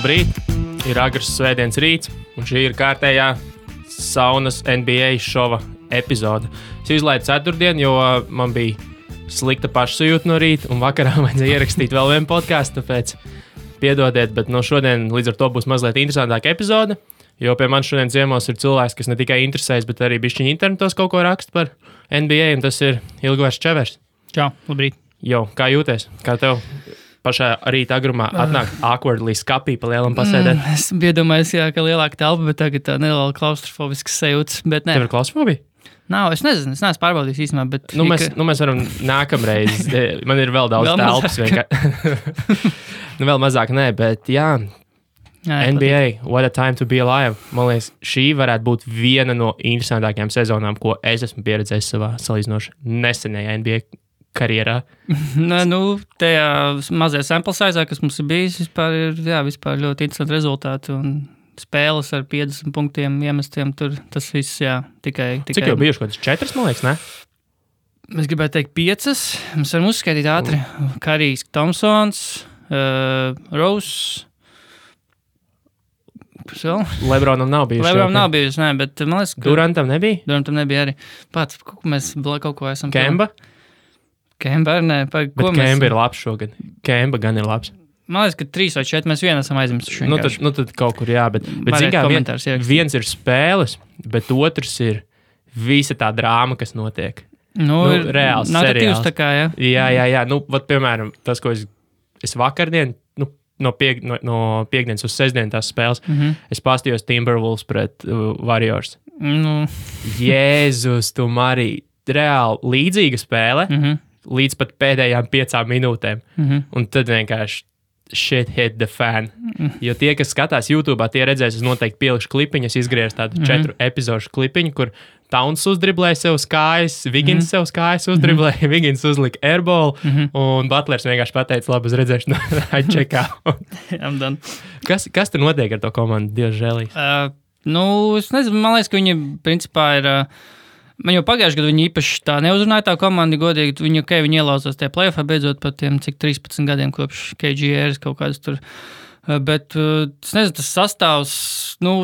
Labrīt! Ir agrs svētdienas rīts, un šī ir kārtējā saunas NBA šova epizode. Es izlaidu ceturtdienu, jo man bija slikta pašsajūta no rīta, un vakarā vajadzēja ierakstīt vēl vienu podcastu, tāpēc piedodiet, bet no šodien līdz ar to būs mazliet interesantāka epizode, jo pie manis šodien ciemos ir cilvēks, kas ne tikai interesēs, bet arī bišķiņ internetos kaut ko raksta par NBA, un tas ir Ilgvars Čevers. Čau, labrīt. Jo, kā jūties? Kā tev pašā rīta agrumā atnāk awkwardly skapī pa lielam pasēdēt? Es biju domājis, jā, ka lielāka telpa, bet tagad tā neliela klaustrofobiskas sajūtas, bet ne. Tev ir klaustrofobija? Nav, es neesmu pārbaudījis īstenībā, bet... Mēs varam nākamreiz, man ir vēl daudz telpas vienkārši. Vēl mazāk nē, bet jā, NBA, what a time to be alive. Man liekas, šī varētu būt viena no interesantākajām sezonām, ko es esmu pieredzējis savā salīdzinoši nesenajā NBA karjerā. Tajā mazajā sample size, kas mums ir bijis, vispār ļoti interesanti rezultāti un spēles ar 50 punktiem iemestiem, tur tas viss, tikai... Cik jau bijuši, kaut kāds 4, man liekas, ne? Es gribētu teikt 5, mēs varam uzskaitīt ātri. Karijs Thompsons, Rose... Lebronam nav bijuši. Lebronam nav bijuši, ne, bet man liekas... Durantam nebija? Durantam nebija arī. Pats, mēs kaut ko esam... Kemba? Kemba, ne. Bet Kemba ir labs šogad. Kemba gan ir labs. Man liekas, ka 3 vai 4 mēs vienu esam aizmirsuši. Tad kaut kur jā, bet zin kā, viens ir spēles, bet otrs ir visa tā drāma, kas notiek. Reāls seriāls. Tā kā, jā. Jā. Piemēram, tas, ko es vakardien, no piekdienas uz sestdienu tās spēles, es pastījos Timberwolves pret Warriors. Jēzus, tu Marī, reāli līdzīga spēle, līdz pat pēdējām 5 minūtēm. Un tad vienkārši shit hit the fan. Jo tie, kas skatās YouTube'ā, tie redzēs, es noteikti pielikšu klipiņu, es izgriezu tādu 4 epizodu klipiņu, kur Towns uzdriblēja sev uz kājas, Wiggins sev uz kājas uzdriblēja, Wiggins uzlika airball, un Butlers vienkārši pateica, labi, uz redzēšanu, I check out. I'm done. Kas tur notiek ar to komandu, Dievs žēlīs? Es nezinu, man liekas, ka viņi principā ir... Man jau pagājuši gadu viņi īpaši tā neuzrunāja tā komanda, godīgi, viņi ielauzās tie playoffā beidzot par tiem, cik 13 gadiem kopš KGRs kaut kādas tur. Bet, es nezinu, tas sastāvs,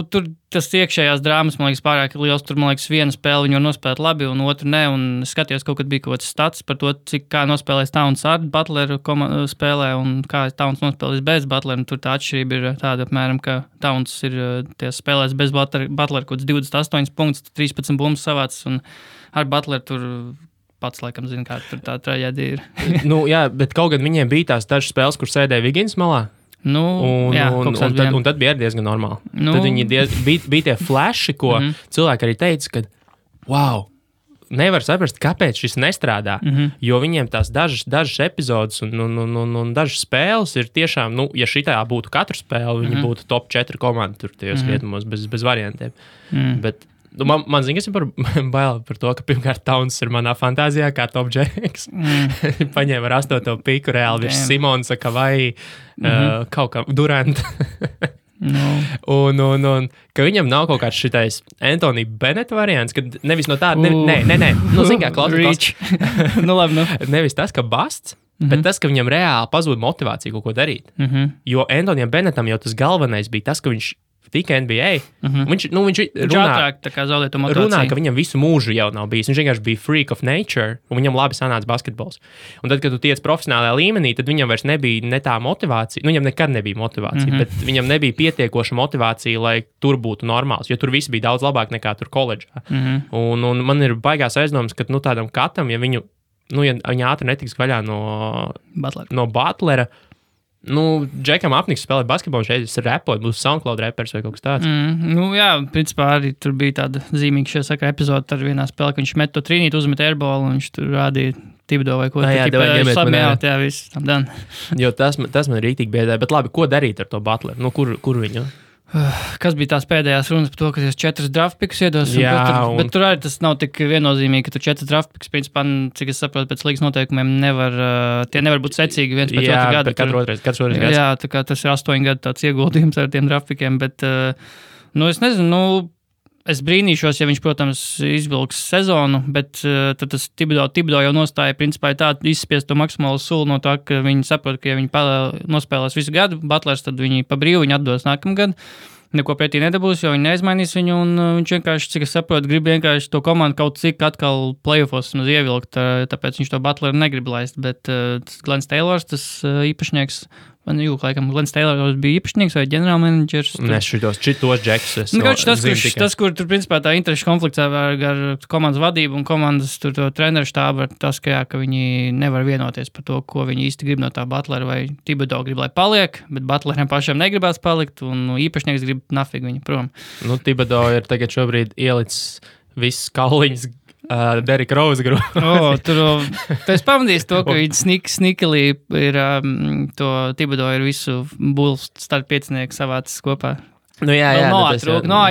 tur tas iekšējās drāmas, man liekas, pārāk liels, tur, man liekas, viena spēle viņi var nospēlēt labi, un otru ne, un es skatījos, kaut kad bija kaut kāds stats par to, kā nospēlēs Towns ar Butleru spēlē, un kā Towns nospēlēs bez Butleru, un tur tā atšķirība ir tāda, apmēram, ka Towns ir spēlēs bez Butleru, kaut kāds 28 punkts, 13 bumbas savācis, un ar Butleru tur pats, laikam, zina, kā tur tā traģēdija ir. Jā, bet kaut gan viņiem bija tās dažas spēles, kur sēdēja Wiggins malā. Un tad bija diezgan normāli. Tad viņi bija tie flashi, ko cilvēki arī teica, ka wow, nevar saprast, kāpēc šis nestrādā, jo viņiem tās dažas epizodes un dažas spēles ir tiešām, ja šitā būtu katru spēli, viņi būtu top 4 komanda tur tajos rietumos bez variantiem. Bet man zina, kas ir bail par to, ka pirmkārt Towns ir manā fantāzijā kā top Jacks. Paņēma ar 8. piku reāli virs Simonsa, Kavai, kaut kā Durant. Un ka viņam nav kaut kāds šitais Anthony Bennett variants, kad nevis no tāda, nē, zin kā, klausies. Nevis tas, ka Basts, bet tas, ka viņam reāli pazūd motivācija kaut ko darīt. Jo Anthonyam Bennettam jau tas galvenais bija tas, ka viņš tika NBA. Viņš runā, ka viņam visu mūžu jau nav bijis. Viņš vienkārši bija freak of nature, un viņam labi sanāca basketbols. Un tad, kad tu tiec profesionālajā līmenī, tad viņam vairs nebija ne tā motivācija. Viņam nekad nebija motivācija, bet viņam nebija pietiekoša motivācija, lai tur būtu normāls, jo tur viss bija daudz labāk nekā tur koledžā. Un man ir baigās aizdomas, ka tādam katam, ja viņu, ja viņa ātri netiks vaļā no Butlera, Džekam apniks spēlēt basketbolu, šeit ir repot, būs SoundCloud repers vai kaut kas tāds. Principā arī tur bija tāda zīmīga šajā sakarā epizode ar vienā spēlē, ka viņš met to trīnīt, uzmet airball, un viņš tur rādīja Tibodo vai ko. Viss, tam dan. Jo tas man rītīgi biedē, bet labi, ko darīt ar to Butleru? Kur viņu? Kas bija tās pēdējās runas par to, ka jūs 4 draft picks iedos? Bet tur arī tas nav tik viennozīmīgi, ka tu 4 draft picks, principā, cik es saprotu, pēc līgas noteikumiem tie nevar būt secīgi viens pēc otru gadu. Katru otru gads. Jā, tā kā tas ir 8 gadu tāds ieguldījums ar tiem draft pickiem, bet, es nezinu, Es brīnīšos, ja viņš, protams, izvilks sezonu, bet tad tas Thibodeau jau nostāja principā tā izspiest to maksimālo sulu no tā, ka viņi saprot, ka ja viņi nospēlēs visu gadu, Butlers, tad viņi pa brīvu viņu atdos nākamgad. Neko pretī nedabūs, jo viņi neizmainīs viņu, un viņš vienkārši, cik es saprotu, grib vienkārši to komandu kaut cik atkal playoffos ievilkt, tāpēc viņš to Butleru negrib laist, bet Glens Taylors, tas īpašnieks, laikam Glens Taylors bija īpašnieks vai ģenerālmenedžers. Nes šitos džekus. Tas, kur tur principā tā interešu konflikts ar komandas vadību un komandas tur to treneru štābu, tas, ka viņi nevar vienoties par to, ko viņi īsti grib no tā Butlera, vai Thibodeau grib, lai paliek, bet Butleram pašam negribās palikt, un īpašnieks grib nafig viņu prom. Thibodeau ir tagad šobrīd ielicis visas kauliņas Derika Rose grupu. Tu esi pamanījis to, ka viņi snikelī ir to Thibodeau ir visu Bulls starp piecinieku savācis kopā. Jā.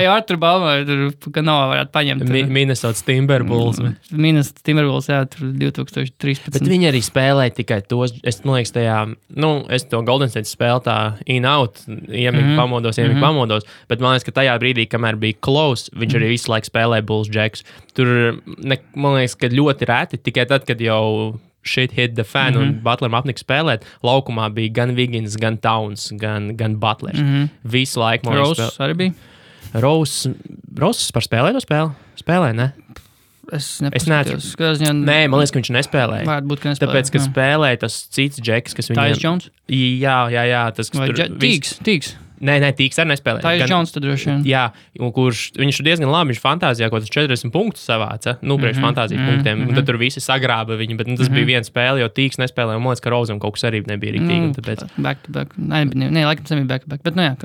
Artur Balmer, ka varētu paņemt. Minnesota Timberwolves. Minnesota Timberwolves, jā, tur 2013. Bet viņi arī spēlēja tikai tos, es liekas tajā, es to Golden State spēlu tā in-out, pamodos, bet man liekas, ka tajā brīdī, kamēr bija close, viņš arī visu laiku spēlēja Bulls Jacks. Tur, man liekas, ka ļoti reti, tikai tad, kad jau shit hit the fan un Butleram apnika spēlēt, laukumā bija gan Wiggins, gan Towns, gan Butlers. Visu laiku. Rose arī bija? Rose par spēlēto spēli? Spēlē, ne? Es neatceros. Nē, man liekas, ka viņš nespēlēja. Varētu būt, ka nespēlēja. Tāpēc, ka spēlēja tas cits džeks, kas viņam... Tyus Jones? Jā. Tas, vai Tīks? Nē, Tīks arī nespēlēja. Tyus Jones tad droši vien. Jā, viņš ir diezgan labi, viņš fantāzijā kaut kāds 40 punktus savāca, priekš fantāzijas punktiem, un tad tur visi sagrāba viņu, bet tas bija viena spēle, jo Tīks nespēlēja, un man liekas, ka Rozam kaut kas arī nebija riktīgi. Tāpēc... Back to back. Nē, laikam tas nebija back to back, bet jā.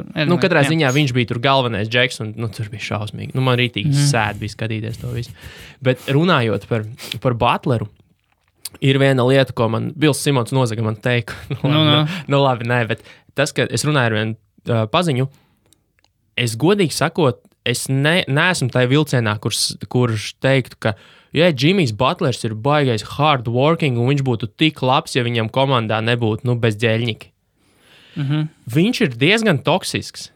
Katrā ziņā viņš bija tur galvenais džeks, un tur bija šausmīgi. Man rītīgi sēd bija skatīties to visu. Bet runājot par Butleru, ir viena lieta, ko man Bils Simons nozaga man teikt. Labi, nē, bet tas, ka es runāju ar vienu paziņu, es godīgi sakot, es neesmu tajā vilcienā, kurš teiktu, ka Jimmys Butlers ir baigais hard working, un viņš būtu tik labs, ja viņam komandā nebūtu bezģēļņiki. Viņš ir diezgan toksisks.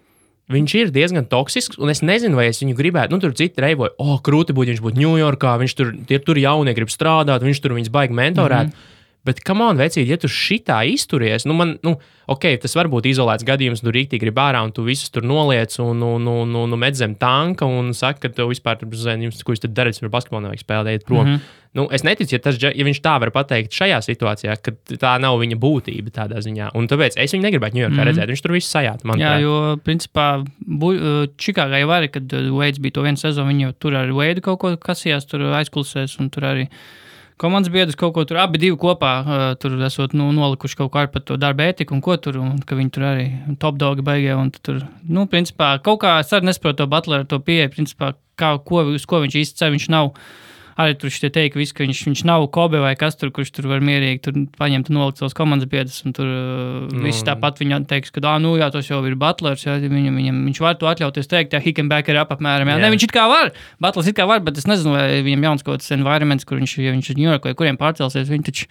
Un es nezinu, vai es viņu gribētu, tur citi reivoja, krūti būtu, viņš būtu Ņujorkā, viņš tur jaunie grib strādāt, viņš tur viņus baigi mentorēt. Bet, come on, vecīt, ja tu šitā izturies, tas var būt izolēts gadījums, tu rīktīgi grib ārā, un tu visus tur noliec un met zem tanka, un saka, ka tev vispār, ko jūs tad darat, ar basketbolu nevajag spēlēt prom. Es neticu, ja viņš tā var pateikt šajā situācijā, ka tā nav viņa būtība tādā ziņā. Un tāpēc es viņu negribētu Ņujorkā redzēt, viņš tur visu sajāt. Jā, jo, principā, Čikāgā jau arī, kad Veids bija to vienu sezonu, viņi jau tur ar Veidu kaut ko kasījās, tur aizkulisēs, un tur arī komandas biedrs kaut ko tur abi divi kopā tur esot nolikuši kaut kā par to darba ētiku un ko tur, un ka viņi tur arī top dogi baigie, un tur, principā, kaut kā es arī nesaprotu to Butleru, to pieeja, principā, uz ko viņš īsti cer, viņš nav, arī tur šitie teika visu, ka viņš nav Kobe vai kas tur, kurš tur var mierīgi tur paņemt un nolikt savus komandas biedrus, un tur visi tāpat viņa teiks, ka, tas jau ir Butlers, jā, viņš var to atļauties teikt, he can back it up apmēram, jā. Ne, viņš it kā var, Butlers it kā var, bet es nezinu, vai viņam jauns kaut kāds environments, kur viņš ir New York vai kuriem pārcelsies, viņi taču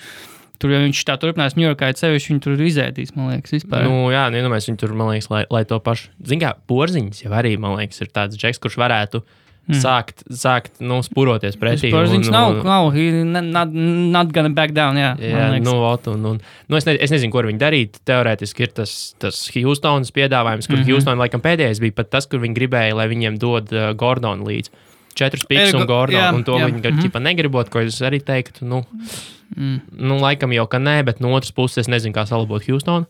tur, ja viņš tā turpinās New Yorkā, sevišķi viņi tur izēdīs, man liekas, vispār. Mēs viņi tur, man liekas, lai to pašu, kā Porziņš jau arī, man liekas, ir tāds džeks, kurš varētu sākt spuroties pretī. Porziņš nav, not gonna back down, jā. Es nezinu, ko ar viņu darīt. Teorētiski ir tas Houstonas piedāvājums, kur Houston laikam pēdējais bija pat tas, kur viņi gribēja, lai viņiem dod Gordonu līdz 4 piks un Gordonu, un to viņi negribot, ko es arī teiktu, laikam jau, ka nē, bet no otras puses es nezinu, kā salabot Houstonu.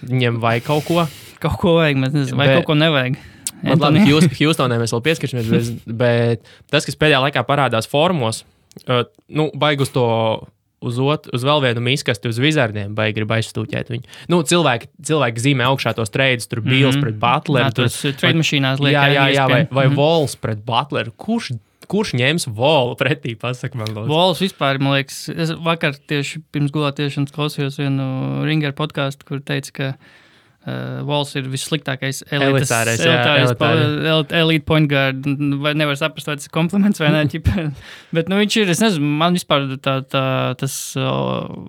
Viņiem vajag kaut ko. Kaut ko vajag, mēs nezinu, vai kaut ko nevajag. Labi, Houstonē mēs vēl pieskaršamies, bet tas, kas pēdējā laikā parādās formos, baig uz to, uz vēl vienu miskasti, uz Wizardiem, baigi grib aizstūķēt viņu. Cilvēki zīmē augšā tos treidus, tur Bills pret Butleru. Tas trade mašīnās liek. Jā, vai Walls pret Butleru. Kurš ņems Wallu pretī, pasaka man lūdzu? Walls vispār, man liekas, es vakar tieši pirms gulātiešanas klausījos vienu Ringer podcastu, kur teica, ka Walls ir vissliktākais elitārais elite point guard. Vai nevar saprast, vai tas ir kompliments vai ne. Bet viņš ir, es nezinu, man vispār tas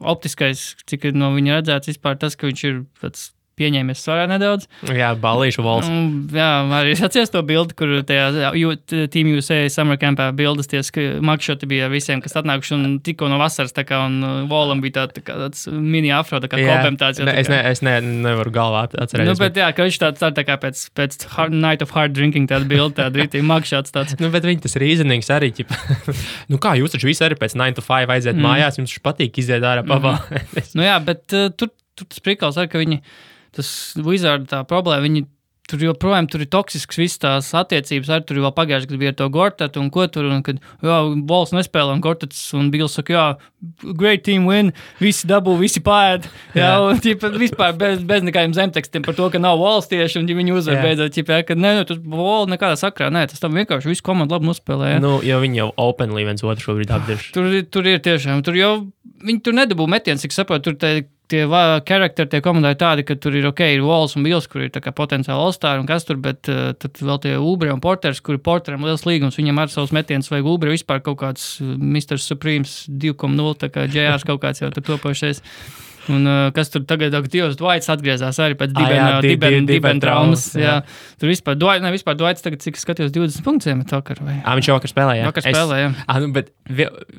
optiskais, cik no viņa redzēts, vispār tas, ka viņš ir tāds pieņēmies svarā nedaudz. Jā, ballīšu valsts. Jā, arī es atceros to bildi, kur tajā Team USA Summer Campā bildes makšoti bija visiem, kas atnākuši un tikko no vasaras, tā kā, un Volam bija tāds mini afro, tā kā kopēm tāds. Es nevaru galvā atcerēties. Bet jā, ka viņš tā kā pēc Night of Hard Drinking tāda bilde, tāda rītī makšots tāds. Bet viņi tas reasonings arī, kā jūs taču visi arī pēc 9 to 5 aiziet mājās, jums taču patīk iziet ārā pavalēties. Jā, bet tur tas prikals arī, ka viņi, tas Wizard tā problēma, viņi tur joprojām tur ir toksisks viss tās attiecības, arī tur vēl pagājuši, kad bija ar to Gortatu un ko tur, un kad, Vols nespēlē, un Gortats un Bills saka, great team win, visi dabū, visi pāēd, un vispār bez nekādiem zemtekstiem par to, ka nav Vols tieši, un viņi uzvar beidzot, ka tas Vol nekādā sakrā, tas tam vienkārši visu komandu labi nospēlē. Jo viņi jau openly viens otru šobrīd apdirš. Tur ir tiešām, viņi tur nedabū metiens, cik saprotu, tur tie karakteri tie komandai tādi, ka tur ir ir Vols un Bills, kur ir tā kā potenciāli all-star un kas tur, bet tad vēl tie Ubre un Porters, kur ir Porteram liels līgums, viņam ar savus metienus vajag Ubre vispār kaut kāds Mr. Supremes 2.0, tā kā JRs kaut kāds jau tur topošies. Un kas tur tagad, Dievs Dwights atgriezās arī pēc dibena traumas. Jā. Tur vispār Dwights tagad, cik skatījos, 20 punktiem ir vakar. Viņš vakar spēlē, jā. Vakar spēlē, jā. Bet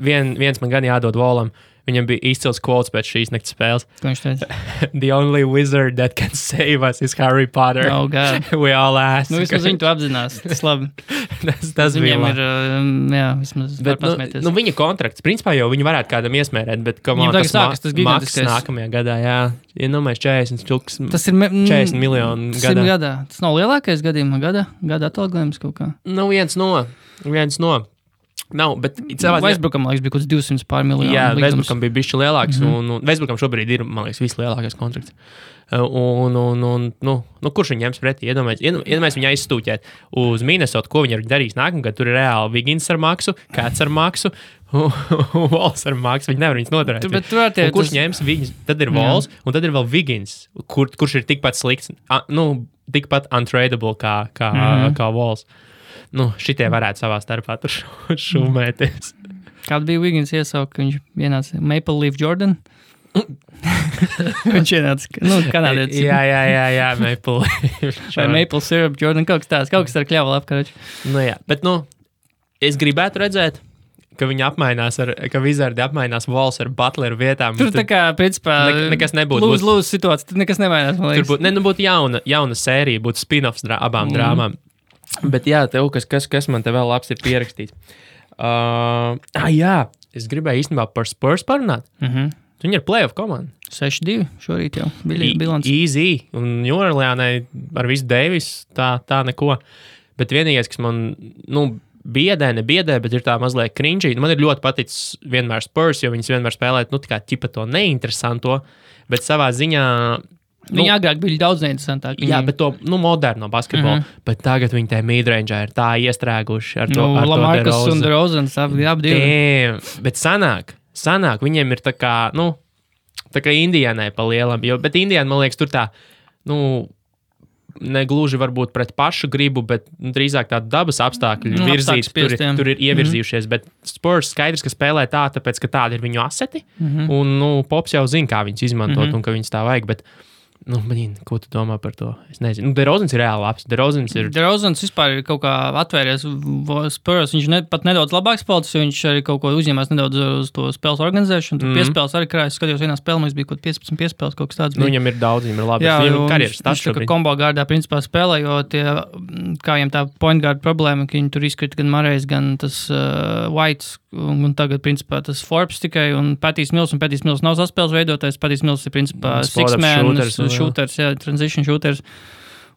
viens man gan jādod Volam. Viņam bija izcils quotes pēc šīs naktas spēles. Ko viņš teica? The only wizard that can save us is Harry Potter. Oh, God. We all ask. Vismaz viņi to apzinās. Tas labi. tas viņam ir, vismaz var pasmēties. Viņa kontrakts, principā jau viņi varētu kādam iesmērēt, bet viņam tagad sākas tas gigantiskais. Maks nākamajā gadā, jā. Ja nomēs 40 miljonu gadā. Tas nav lielākais gadījumā gada atalgojums kaut kā. Viens no. Nav, bet Westbrookam, man liekas, bija kaut kāds 200 pār miljonu. Jā, Westbrookam bija bišķi lielāks, un Westbrookam šobrīd ir, man liekas, vislielākais kontrakts. Kurš viņu ņems pretī? Iedomājies viņu aizstūķēt uz Minnesota, ko viņi ir darījis nākamgad. Tur ir reāli Wiggins ar maksu, Cats ar maksu, Vols ar maksu. Viņi nevar viņus noturēt. Kurš ņems viņus? Tad ir Vols, un tad ir vēl Wiggins, kurš ir tikpat slikts, tikpat untradeable kā Vols. Šitie varētu savā starpā tur šumēties. Kāda bija Wiggins iesauka, ka viņš ienāca Maple Leaf Jordan? Viņš ienāca, kanādietis. Jā, Maple Leaf. Vai Maple Syrup Jordan, kaut kas ar kļavu apkaroči. Bet, es gribētu redzēt, ka viņi ka Wizardi apmainās Vols ar Butleru vietām. Tur tā kā, principā, nekas nebūtu. Lūdzu situācija, tur nekas nemainās, man liekas. Tur būtu jauna sērija, būtu spin-offs abām drāmām. Bet jā, tev kas man te vēl labs ir pierakstīts. Jā, es gribēju īstenībā par Spurs parunāt. Viņi ir playoff komanda. 6-2 šorīt jau bilants. Easy. Un Jorlēnai ar visu Davis tā neko. Bet vienīgais, kas man, biedē, bet ir tā mazliet cringy. Man ir ļoti paticis vienmēr Spurs, jo viņas vienmēr spēlēt, tā kā ķipa to neinteresanto, bet savā ziņā Viņi agrāk bija daudz neinteresantāk. Jā, bet to moderno basketbolu. Bet tagad viņi tajā midrange'ā ir tā iestrēguši ar to Lamarcus un DeRozans abi divi. Bet sanāk, viņiem ir tā kā Indianai pa lielam. Bet Indiana, man liekas, tur tā, negluži varbūt pret pašu gribu, bet drīzāk tādu dabas apstākļu virzīts, tur ir ievirzījušies. Bet Spurs skaidrs, ka spēlē tāpēc, ka tādi ir viņu aseti. Un Pops jau zina, kā viņus izmantot un ka viņus tā vajag. Bet ko tu domā par to? Es nezinu. DeRozans ir reāli labs. DeRozans vispār ir kaut kā atvēries Spurs. Viņš pat nedaudz labāks spēlētājs, jo viņš arī kaut ko uzņēmās nedaudz uz to spēles organizēšanu. Tur piespēles arī krājas. Skatījos vienā spēlē, mums bija kaut 15 piespēles, kaut kas tāds. Viņam ir daudz, viņam ir labi. Jā, viņš tā kā kombo gārdā principā spēlē, jo kā viņam tā point guard problēma, ka viņi tur izkrita gan Marejs, gan tas Whites, un tagad principā tas Forbes tikai, un Patijs Mills nav saspēles veidotājs. Patijs Mills ir principā six-man shooters, transition shooters.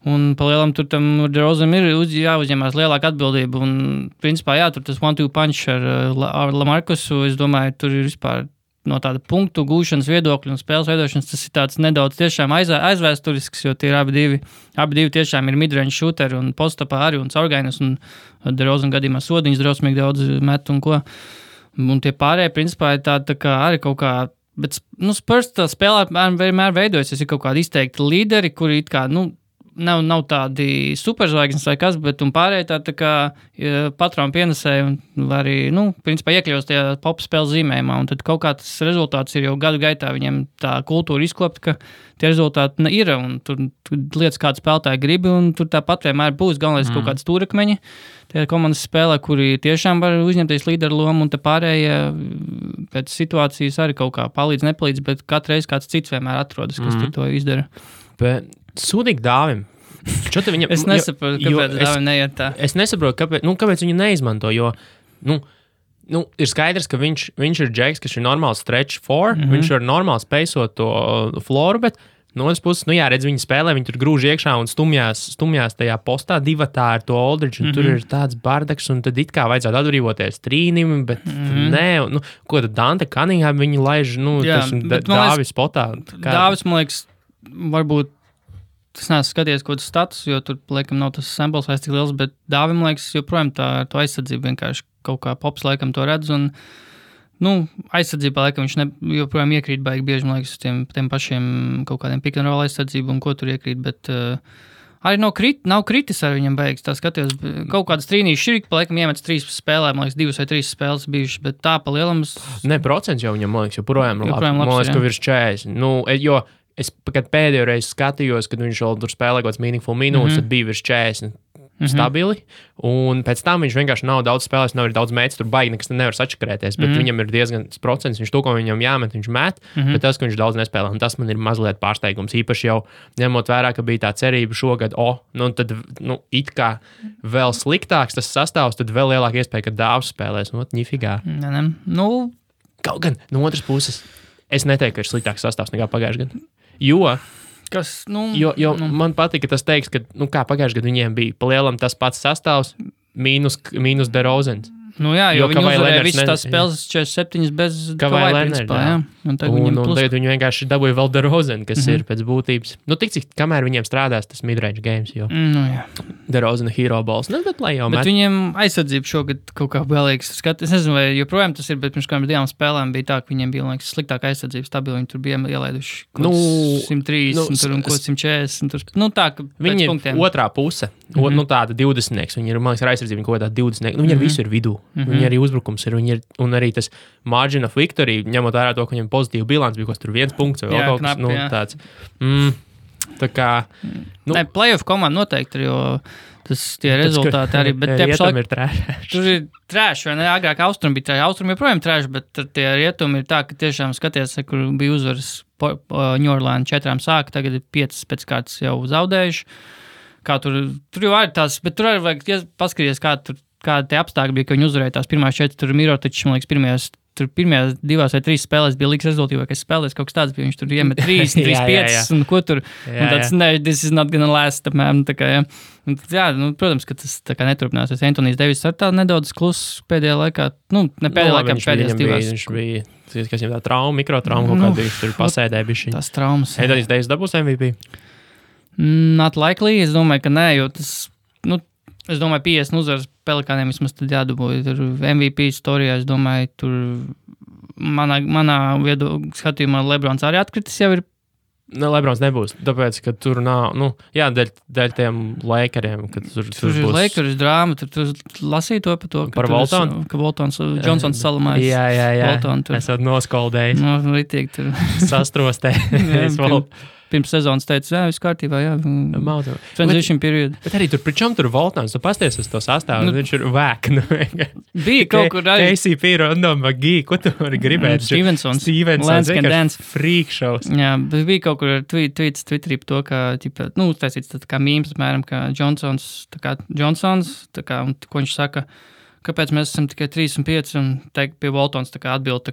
Un pa lielam tur tam DeRozanam ir jāuzņemās lielāka atbildība. Un principā, tur tas 1-2 punch ar Lamarcusu, es domāju, tur ir vispār no tāda punktu gūšanas viedokļa un spēles veidošanas, tas ir tāds nedaudz tiešām aizvēsturisks, jo tie ir abi divi tiešām ir midrange shooteri un postapā arī un caurgainas un DeRozan gadījumā sodiņas drausmīgi daudz met un ko. Un tie pārējie principā ir tā kā arī kaut kā. Bet Spurs tā spēlē vienmēr veidojas, ir kaut kādi izteikti līderi, kuri it kā, nav tādi superzvaigznes vai kas, bet pārējie tā kā patronu pienesēji un arī, principā iekļaus tajā pop spēles zīmējumā. Un tad kaut kā tas rezultāts ir jau gadu gaitā viņiem tā kultūra izkopt, ka tie rezultāti ir un tur lietas kādu spēlētāju gribi un tur tāpat vienmēr būs galvenais kaut kāds stūrakmeņi. Tie komandas spēlē, kuri tiešām var uzņemties līderu lomu un te pārējie pēc situācijas arī kaut kā nepalīdz, bet katru reizi kāds cits vienmēr atrodas, kas tur to izdara. Bet sūdīgi Dāvim. Viņam, es nesaprotu, kāpēc Dāvim neiet tā. Es nesaprotu, kāpēc viņu neizmanto, jo ir skaidrs, ka viņš ir džeks, kas ir normāls stretch four, viņš var normāli spēsot to floru, bet no otras puses, redz, viņi spēlē, viņi tur grūž iekšā un stumjās tajā postā divatā ar to Aldridge, un tur ir tāds bardaks, un tad it kā vajadzētu atbrīvoties trīnim, bet nē, ko tad Dante Cunningham viņi laiž, Dāvis spotā. Dāvis, man liekas, varbūt tas neesmu skatījies kaut kāds status, jo tur, laikam, nav tas sample size tik liels, bet Dāvim, man liekas, joprojām to aizsardzību vienkārši kaut kā pops, laikam, to redz, un, aizsardzībā, laikam, viņš joprojām iekrīt baigi bieži, man liekas, tiem pašiem kaut kādiem pick and roll aizsardzību un ko tur iekrīt, bet arī nav kritis ar viņam beigas, tā skatījos, kaut kādas trīnīši šķirīgi, pa laikam iemets 3 spēlē, man liekas, 2 vai 3 spēles bijušas, bet tā pa lielam... procents jau viņam, man liekas, joprojām labs, man liekas, ka virs 40, jo es, kad pēdējo reizi skatījos, kad viņš vēl tur spēlē kaut kāds meaningful minūtes, tad bija virs 40 stabili, un pēc tam viņš vienkārši nav daudz spēlēs, nav arī daudz mēģis, tur baigi nekas nevar sačakarēties, bet viņam ir diezgan procents, viņš to, ko viņam jāmet, viņš met, bet tas, ka viņš daudz nespēlē, un tas man ir mazliet pārsteigums, īpaši jau ņemot vērā, ka bija tā cerība šogad, tad, it kā vēl sliktāks tas sastāvs, tad vēl lielāka iespēja, ka Dāvs spēlēs, ņifigā. Kaut gan, no otras puses, es neteiktu, ka ir sliktāks sastāvs nekā pagājušajā gadā. Jo man patika tas teiks, ka, kā pagājušajā gadā viņiem bija palielam tas pats sastāvs, mīnus DeRozans. Jo viņi uzvarēja visas tās spēles 47 bez Kawhi principā, jā. Un tagad viņi vienkārši dabūja vēl DeRozan, kas ir pēc būtības. Tik cik, kamēr viņiem strādās tas midrange games, jo DeRozan hero balls, bet lai jau met. Bet viņiem aizsardzība šogad kaut kā vēlīgs. Es nezinu, vai joprojām tas ir, bet pirms kādām 2 spēlēm bija tā, ka viņiem bija, liekas, sliktāka aizsardzība stabili. Viņi tur bija ielaiduši 130 un 140. Tā, ka viņi ir otrā puse, tāda 20-nieks. Viņi ir, man liekas, ar aizsardzību kaut kādā 20-nieks. Viņi ar visu ir vidū. Viņi arī uzbrukums ir, un arī tas margin of victory, ņemot vērā to, ka viņam pozitīva bilants bija, tur 1 punkts vai kaut kas tāds. Tā kā... Playoff komanda noteikti ir, jo tie rezultāti arī, bet rietumi ir trēši. Tur ir trēši, vai ne? Agrāk Austrumi bija trēši. Austrumi joprojām trēši, bet tie rietumi ir tā, ka tiešām skaties, kur bija uzvaras New Orleans 4 sāka, tagad ir 5 pēc kārtas jau zaudējuši. Kā tur jau arī tās, bet tur arī vajag paskatīties, kādi tie apstākļi bija, ka viņi uzvarēja tās pirmās 4, tur Mirotičs, man liekas, pirmajās 2 vai 3 spēlēs bija liks rezultīvākais spēlēs, kaut kas tāds bija, viņš tur iemet 3, 5, un ko tur, un tāds, this is not gonna last, apmēram, tā kā, jā. Un, protams, ka tas tā kā neturpināsies. Antonijs Devis ar tā nedaudz kluss pēdējā laikā, ne pēdējā laikā, pēdējās 2. Viņš bija, kas viņam tā trauma, mikrotrauma, kaut kādā viņš tur pasēdēja bišķiņ. Tās traumas. Antonijs Devis dabūs MVP? Not likely, es domāju, ka nē, jo tas, es domāju, 50 uzvaras Pelikāniem vismaz tad jādabūja. Tur MVP storijā, es domāju, tur manā skatījumā Lebrons arī atkritis jau ir. Lebrons nebūs, tāpēc, ka tur nav, dēļ tiem Lakeriem, kad tur ir būs... Lakers drāma, tur lasīja to par to, par Voltonu? Ka Voltons, Johnsons salamājas. Jā. Voltonu tur. Esat noskoldējis. Ritīgi tur. Sastrostējis. Pirms sezonas teica, viss kārtībā, transition period. Bet arī tur, pričam tur Voltons, tu pasties uz to sastāvu, viņš ir vēk. Bija kaut kur arī. KCP, Rondo, McGee, ko tu vari gribēt? Stevensons, vienkārši freak shows. Jā, bet bija kaut kur tweets Twitterī par to, ka, uztaisīts tā kā mīms, apmēram, ka Johnsons, un ko viņš saka, kāpēc mēs esam tikai 3 un 5, un teikt pie Voltons atbild,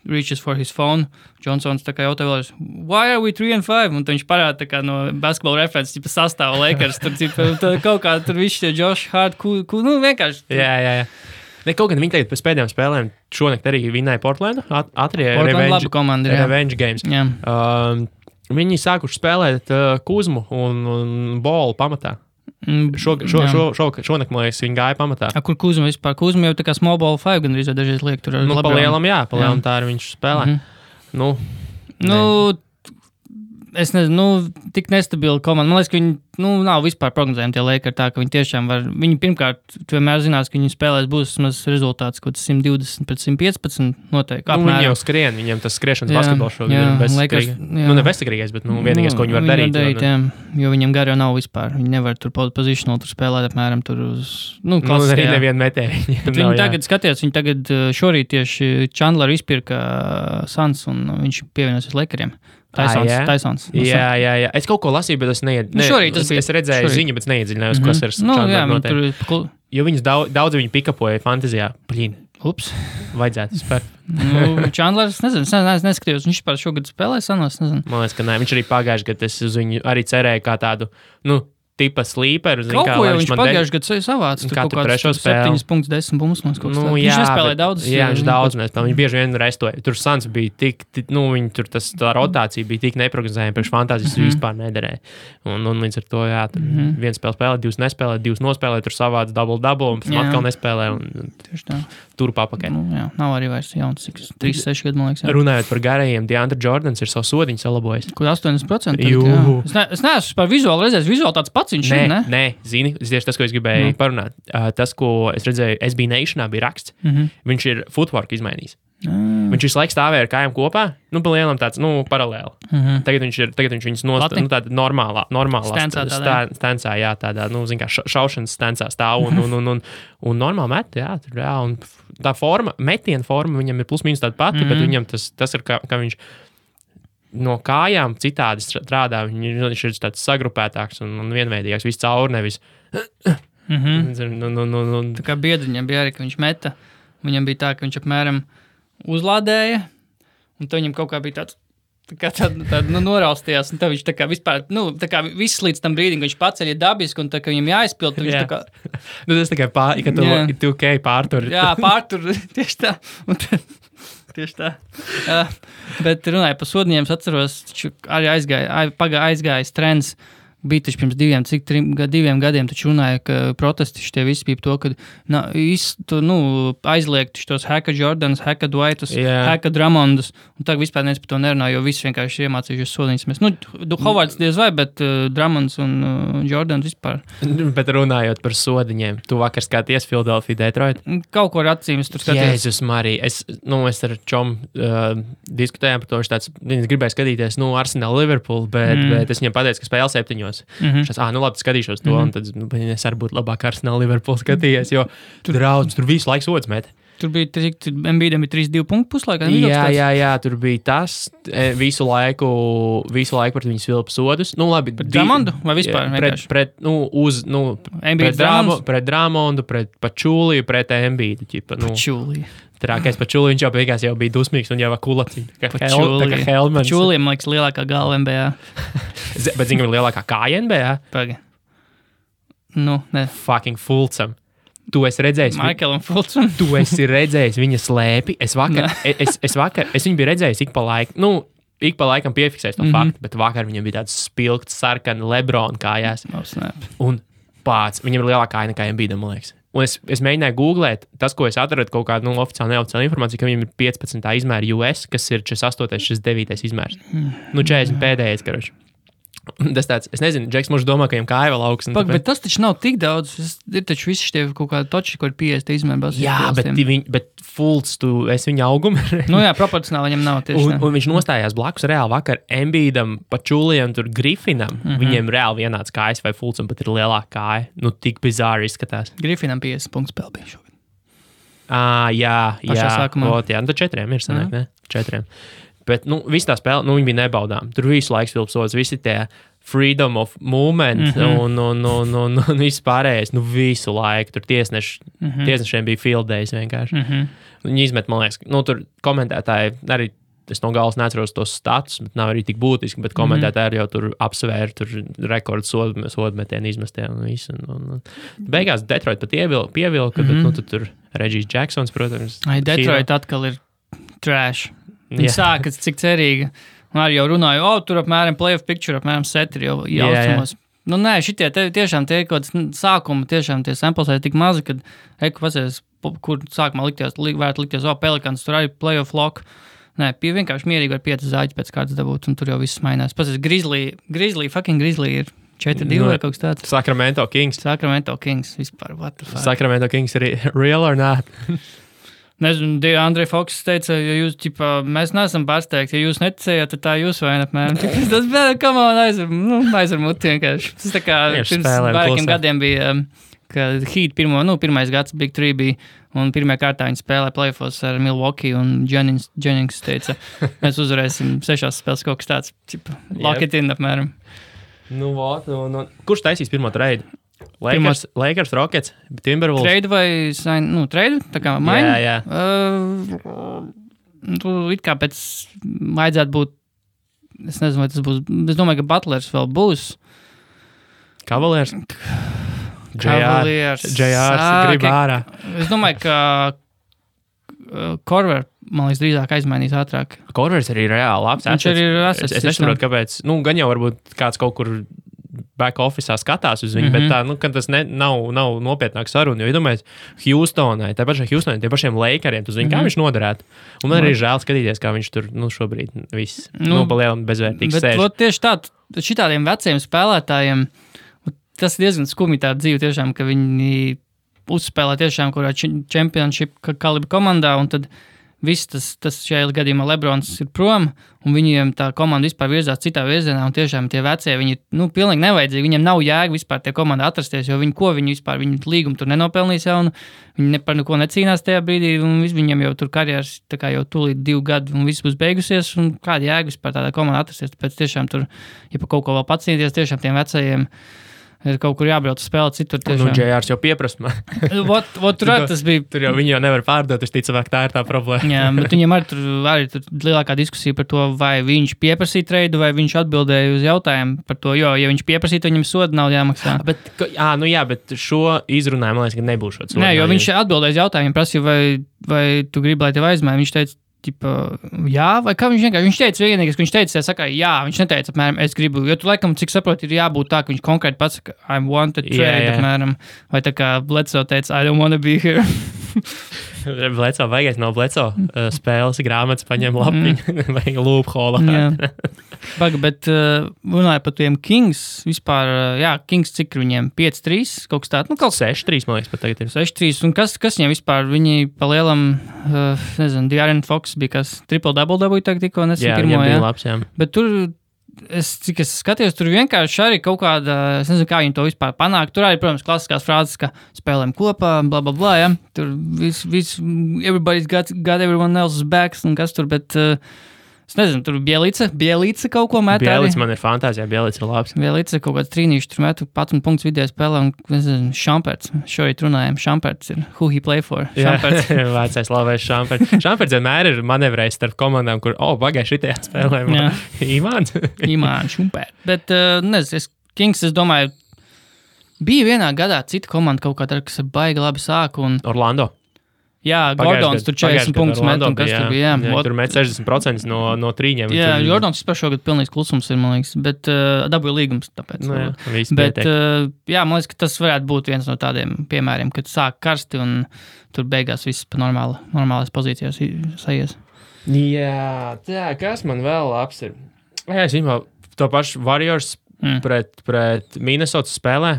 reaches for his phone. Johnsons jautā vēlreiz, why are we 3 and 5? Un viņš parāda no basketball references, sastāva Lakers, tur kaut kā tur viss tie Josh Hart, vienkārši. Jā. Kaut gan viņi tagad pēc pēdējām spēlēm šonakt arī vinnēja Portlandu, Portland revenge games. Jā. Viņi sākuši spēlēt Kuzmu un Bolu pamatā. Šonakt, man liekas, viņi gāja pamatā. Kur Kuzma vispār? Kuzma jau tā kā small ball 5 gan arī dažreiz liek tur. Palielam tā arī viņš spēlē. Es nezinu, tik nestabila komanda. Man liekas, ka viņi nav vispār prognozējami tie Lakers tā, ka viņi tiešām var. Viņi pirmkārt, tu vienmēr zinās, ka viņi spēlēs būs rezultāts, kaut 120 pret 115 noteikti. Viņi jau skrien, viņiem tas skriešanas basketbols šogad ir bezsakrīgais. Ne bezsakrīgais, bet vienīgais, ko viņi var darīt. Jo viņiem gar jau nav vispār. Viņi nevar tur positional tur spēlēt apmēram tur uz, arī nevienu metēju. Viņi tagad skatījās, viņi tagad šorīt tieši Chandleru izpirka Suns un viņš pievienosies Lakeriem. Tysons. Jā. Es kaut ko lasīju, bet es es redzēju ziņu, bet neiedziļinājos, kas ir Chandler noteikti. Jo viņus daudz viņi pikapoja fantazijā. Ups. Vajadzētu spērt. Chandlers, neskatījos, viņš par šogad spēlē sanos, nezinu. Man liekas, ka nē, viņš arī pagājuši, kad es uz viņu arī cerēju kā tādu, tipa slīperu. Kaut ko jau viņš pagājuši gadu savāds. Katru trešo spēli. 7 punktus, 10 punktus. Viņš nespēlēja daudz. Jā, viņš daudz nespēlēja. Viņš bieži vien restoja. Tur Suns bija tik, viņi tur tā rotācija bija tik neprognozējama, priekš fantāzijas vispār nederēja. Un līdz ar to, jā, tur viens spēlē, divas nespēlē, divas nospēlē, tur savāds double, un pēc tam atkal nespēlē. Tieši tā. Tur papakaļ. Jā, nav arī vairs jauns, 3-6 gadu, man liekas. Jā. Runājot par garajiem, DeAndre Jordans ir savu sodiņu salabojis. Kur 80%? Es neesmu par vizuāli redzējis. Vizuāli tāds pats viņš ir, ne? Nē, zini, tieši tas, ko es gribēju parunāt. Tas, ko es redzēju, SB Nationā bija raksts. Viņš ir footwork izmainījis. Viņš visu laiku stāvēja ar kājām kopā, pa lielam tāds, paralēli. Tagad viņš viņus tāda normālā stancā, jā, tādā, zin kā, šaušanas stancā stāv un normāli met, jā, tur, jā, un tā forma, metiena forma viņam ir plus mīnus tāda pati, bet viņam tas ir, ka viņš no kājām citādi strādā, viņš ir tāds sagrupētāks un vienveidīgāks, viss caur, nevis. Tā kā biedriņam bija arī, ka viņš meta, viņam bija tā, ka viņš apmēram uzlādēja, un tad viņam kaut kā bija tāda noraustījās, un tad viņš tā kā vispār, tā kā viss līdz tam brīdim, ka viņš paceļ dabiski, un tā kā viņam jāizpild, tad viņš tā kā. Tas tā kā ka tu pārtur. Jā, pārtur, tieši tā. Tieši tā. Bet runāju par sodiņiem, es atceros, arī aizgājis trends. Bija taču pirms 2 gadiem, taču runāja, ka protesti šitie visi bija to, ka aizliegt tos Haka Jordans, Haka Dwightus, Haka Drummondus, un tagad vispār neviens par to nerunā, jo visi vienkārši iemācījušies sodiņas. Hovards diez vai, bet Drummonds un Jordans vispār. Bet runājot par sodiņiem, tu vakar skaties Philadelphia Detroit? Kaut ko ar acīm es tur skaties. Jēzus Marija, es ar čom diskutējām par to, viņš gribēja skatīties, Arsenal Liverpool, bet es viņam pateicu, ka spēle 7. Šās, labi, skatīšos to, un tad es arī būtu labāk Arsenal Liverpool skatījies, jo tur visu laiku sods met. Tur bija, Embiidam bija 3-2 punktu puslaikā. Jā, tur bija tas visu laiku pret viņu svilpu sodus. Labi, pret Drummondu vai vispār? Pret Drummondu, pret Pačuliju, pret Embiidu. Pačuliju. Trākais Pačuliju, viņš jau beigās bija dusmīgs un jau kulaciņ. Tā kā Helmans. Pačuliju, man liekas, lielākā galva NBA. Bet zini, ka lielākā kāja NBA? Paga. Ne. Fucking Fulcam. Tu esi redzējis, Maikelam Fulcam. Tu esi redzējis viņa slēpi. Es viņu biju redzējis ik pa laikam piefiksējis to faktu, bet vakar viņam bija tāds spilgts, sarkani LeBron kājās. Un viņam ir lielākā kāja nekā Embiidam, man liekas. Un es mēģināju googlēt, tas, ko es atradu, kaut kādu oficiālu, neoficiālu informāciju, ka viņam ir 15. izmēra US, kas ir 48. 49. izmērs. 40 pēdējais, karoči. Tas tāds, es nezinu, Džeks mums domā, ka viņam kāja vēl augsts. Bet tas taču nav tik daudz. Ir taču visi šie kaut kādi toči, kur ir 50 izmērs. Jā, bet Fults, es viņa augumu. Jā, proporcionāli viņam nav tieši. Un viņš nostājās blakus reāli vakar Embiidam, Pačulijam, tur Griffinam. Viņiem reāli vienāds kājas vai Fultsam pat ir lielāka kāja. Tik bizāri izskatās. Griffinam 50 punktu spēle bija šogad. Jā. Sākumā. Tad 4 ir sanāk, ne? 4. Bet, viss tā spēle, viņi bija nebaudām. Tur visu laiku svilpsots, visi tie freedom of movement un viss pārējais, visu laiku. Tur tiesnešiem bija field days vienkārši. Viņi izmet, man liekas, tur komentētāji arī, es no galas neatceros tos status, bet nav arī tik būtiski, bet komentētāji jau tur apsvēra, tur rekords sodmetienu izmestē un visu. Beigās Detroit pat pievilka, bet tad tur Regis Jacksons, protams. Detroit atkal ir trash. Viņi sākas, cik cerīgi. Un arī jau runāju, tur apmēram playoff picture, apmēram setri jau jaucamos. Nē, šitie tiešām tie kaut kāds sākumi, tiešām tie samples ir tik mazi, kad pasēs, kur sākumā varētu likties, Pelicans, tur arī playoff lock. Nē, vienkārši mierīgi var 5 zāģi pēc kārtas dabūt, un tur jau viss mainās. Pasaka, Grizzly ir 4-2 vai kaut kas tāds. Sacramento Kings, vispār, what the fuck. Sacramento Kings ir real or not? Nezinu, Andrej Foks teica, ja jūs, mēs neesam pārsteigti, ja jūs neticējāt, tad tā jūs vainat, apmēram. Tas bija, come on, aizver muti vienkārši. Tas tā kā pirms vairākiem gadiem bija, ka Heat pirmais gads Big 3 bija, un pirmajā kārtā viņi spēlē playoffs ar Milwaukee, un Jennings teica, mēs uzvarēsim 6 spēles kaut kas tāds, lock it in, apmēram. Kurš taisīs pirmo trade? Lakers, Rockets, Timberwolves. Trade vai trade? Tā kā maiņa? Jā. It kā pēc vajadzētu būt, es nezinu, vai tas būs, es domāju, ka Butlers vēl būs. Cavaliers, grib ārā. Es domāju, ka Korver, man liekas, drīzāk aizmainīs ātrāk. Korvers arī reāli labs. Viņš arī ir assets. Es nesaprotu, kāpēc. Gan jau varbūt kāds kaut kur back office'ā skatās uz viņu, bet tā, ka tas nav nopietnāk saruna. Jo, iedomājies, Houstonai, tie pašiem Lakeriem, tu zini, kā viņš noderētu. Un man arī žēl skatīties, kā viņš tur, šobrīd viss palielam bezvērtīgs sēž. Bet tieši tā, šitādiem veciem spēlētājiem, tas ir diezgan skumji tā dzīve tiešām, ka viņi uzspēlē tiešām kurā championship kalibra komandā, un tad viss tas šajā gadījumā Lebrons ir prom, un viņiem tā komanda vispār virzās citā virzienā, un tiešām tie vecie, viņi pilnīgi nevajadzīgi, viņiem nav jēga vispār tie komanda atrasties, jo viņi līgumu tur nenopelnīs jau, un viņi par neko necīnās tajā brīdī, un viņiem jau tur karjeras tā kā jau tūlīt 2 gadi, un viss būs beigusies, un kāda jēga vispār tādā komanda atrasties, tāpēc tiešām tur, ja pa kaut ko vēl pacīnīties, tiešām tiem vecajiem ir kaut kur jābrauc spēlēt citur. JRs jau pieprasa man. Tas bija. Tur jau viņi jau nevar pārdot, es ticu, tā ir tā problēma. Jā, bet viņam arī tur lielākā diskusija par to, vai viņš pieprasīja treidu, vai viņš atbildēja uz jautājumu par to, jo, ja viņš pieprasīja, tad viņam soda nav jāmaksā. Bet šo izrunājumu, man liekas, ka nebūs šāds. Nē, jo viņš atbildēja uz jautājumu, prasīja, vai tu gribi, lai tev aizmaina. Viņš teica, jā, vai kā viņš teica vienīgais, ka viņš teica, jā, viņš neteica, apmēram, es gribu, jo tu laikam, cik saproti, ir jābūt tā, ka viņš konkrēti pasaka, I want to trade, apmēram, vai tā kā Bledsoe teica, I don't want to be here. Bledsoe, vajag no Bledsoe spēles grāmatas paņem lapiņu, vajag loophole. Bet runāja par tiem Kings, vispār, Kings cik viņiem 5-3, kaut kas tāds, kaut 6-3, man liekas, pat tagad ir. 6-3, un kas viņiem vispār, viņi pa lielam, nezinu, De'Aaron Fox bija kas, triple-double dabūja tagad tikko, nesen pirmo, bija labs, Bet tur, cik es skatījos, tur vienkārši arī kaut kāda, es nezinu, kā viņi to vispār panāk. Tur arī, protams, klasiskās frāzes, ka spēlēm kopā, bla, bla, bla, ja. Tur viss, everybody's got everyone else's backs, un kas tur, bet, es nezinu, tur Bielica kaut ko met. Bielica man ir fantāzija, Bielica ir labs. Bielica kaut kāds trīnīši tur metu, pats un punkts vidēja spēlē, un, nezinu, Šamperts. Šorīt runājam, Šamperts ir who he play for. Šamperts. Jā, vecais labais Šamperts. Šamperts vienmēr ir manevrējis starp komandām, kur, pagaid šitajā spēlē. Imāns, Šamperts. Bet, nezinu, Kings, es domāju, bija vienā gadā cita komanda kaut kādā, kas ir baigi labi sāk. Orlando. Jā, Gordons tur 40 punktus met, un kas tur bija. Jā, tur met 60% no trīņiem. Jā, Gordons vispār šogad pilnīgs klusums ir, man liekas, bet dabūja līgums, tāpēc. Bet, man liekas, ka tas varētu būt viens no tādiem piemēriem, kad sāk karsti un tur beigās viss pa normālās pozīcijās sajies. Jā, kas man vēl labs ir? Jā, es viņam to pašu Warriors pret Minnesota spēlē.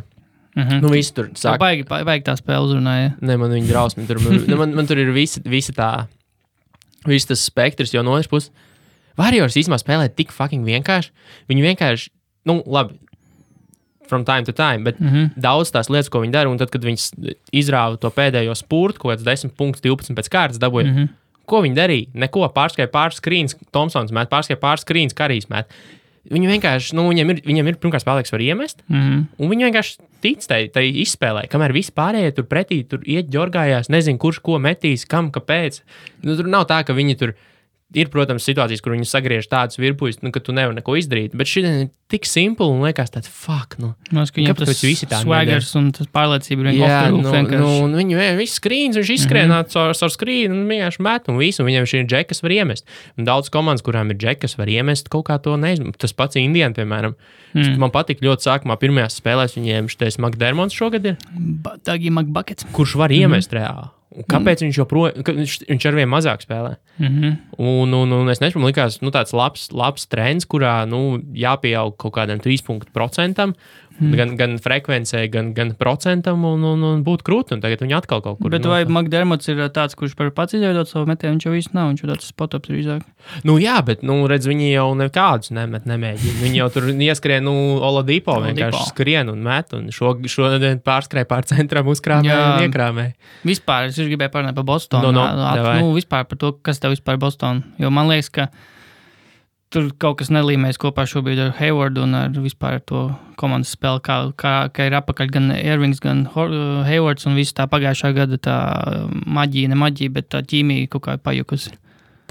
Visi tur sāk. Baigi tā spēle uzrunāja. Ne, man viņa drausmi. Man tur ir visa tā, viss tas spektrs, jo no otras puses Warriors īstenībā spēlē tik fucking vienkārši. Viņi vienkārši, labi, from time to time, bet daudz tās lietas, ko viņi dara, un tad, kad viņi izrāva to pēdējo spurtu, kaut kāds 10 punktus, 12 pēc kārtas dabūja, ko viņi darīja? Neko, pārskrēja pāris skrīns, Thompsons met, pārskrēja pāris skrīns, Karijs met. Viņi vienkārši, viņam ir pirmkārt spēlēks var iemest, un viņi vienkārši tic tai izspēlē, kamēr visi pārējie tur pretī, tur iet ģorgājās, nezinu, kurš ko metīs, kam, kāpēc. Tur nav tā, ka viņi tur ir, protams, situācijas, kur viņi sagriež tādus virpuļus, ka tu nevari neko izdarīt, bet šī ir tik simpli un liekas tāds, fuck, kāpēc visi tā swaggers un tas pārliecība ir vienkārši. Un viņi visi skrīns, viņš izskrienāt ar skrīnu un vienkārši met, un visu, un viņam šī ir džekas var iemest. Un daudz komandas, kurām ir džekas var iemest, kaut kā to neizmest. Tas pats Indiana, piemēram. Man patīk ļoti sākumā pirmajās spēlēs viņiem šitais McDermotts šogad ir. Dagi McBuckets. Kurš var iemest reāli. Kāpēc viņš arvien mazāk spēlē? Un es nezinu, man likās, tāds labs trends, kurā, jāpieaug kaut kādam 3%, gan frekvencē, gan procentam, un būt krūti, un tagad viņi atkal kaut kur. Bet vai McDermotts ir tāds, kurš par pats izveidot savu metienu, viņš jau īsti nav, viņš jau tāds spot-ups drīzāk? Jā, bet, redz, viņi jau nekādus nemēģina. Viņi jau tur ieskrien, Oladipo vienkārši skrien un met, un šodien pārskrēja pār centram, uzkrāmē un iekrāmē. Vispār, es gribēju parunāt par Bostonu. Vispār par to, kas tev vispār Bostonu. Jo man liekas, ka tur kaut kas nelīmēs kopā šobrīd ar Haywardu un ar vispār to komandas spēli, kā ir apakaļ gan Irvings, gan Haywards un visu tā pagājušā gada tā maģija, ne maģija, bet tā ķīmija kaut kā pajukusi.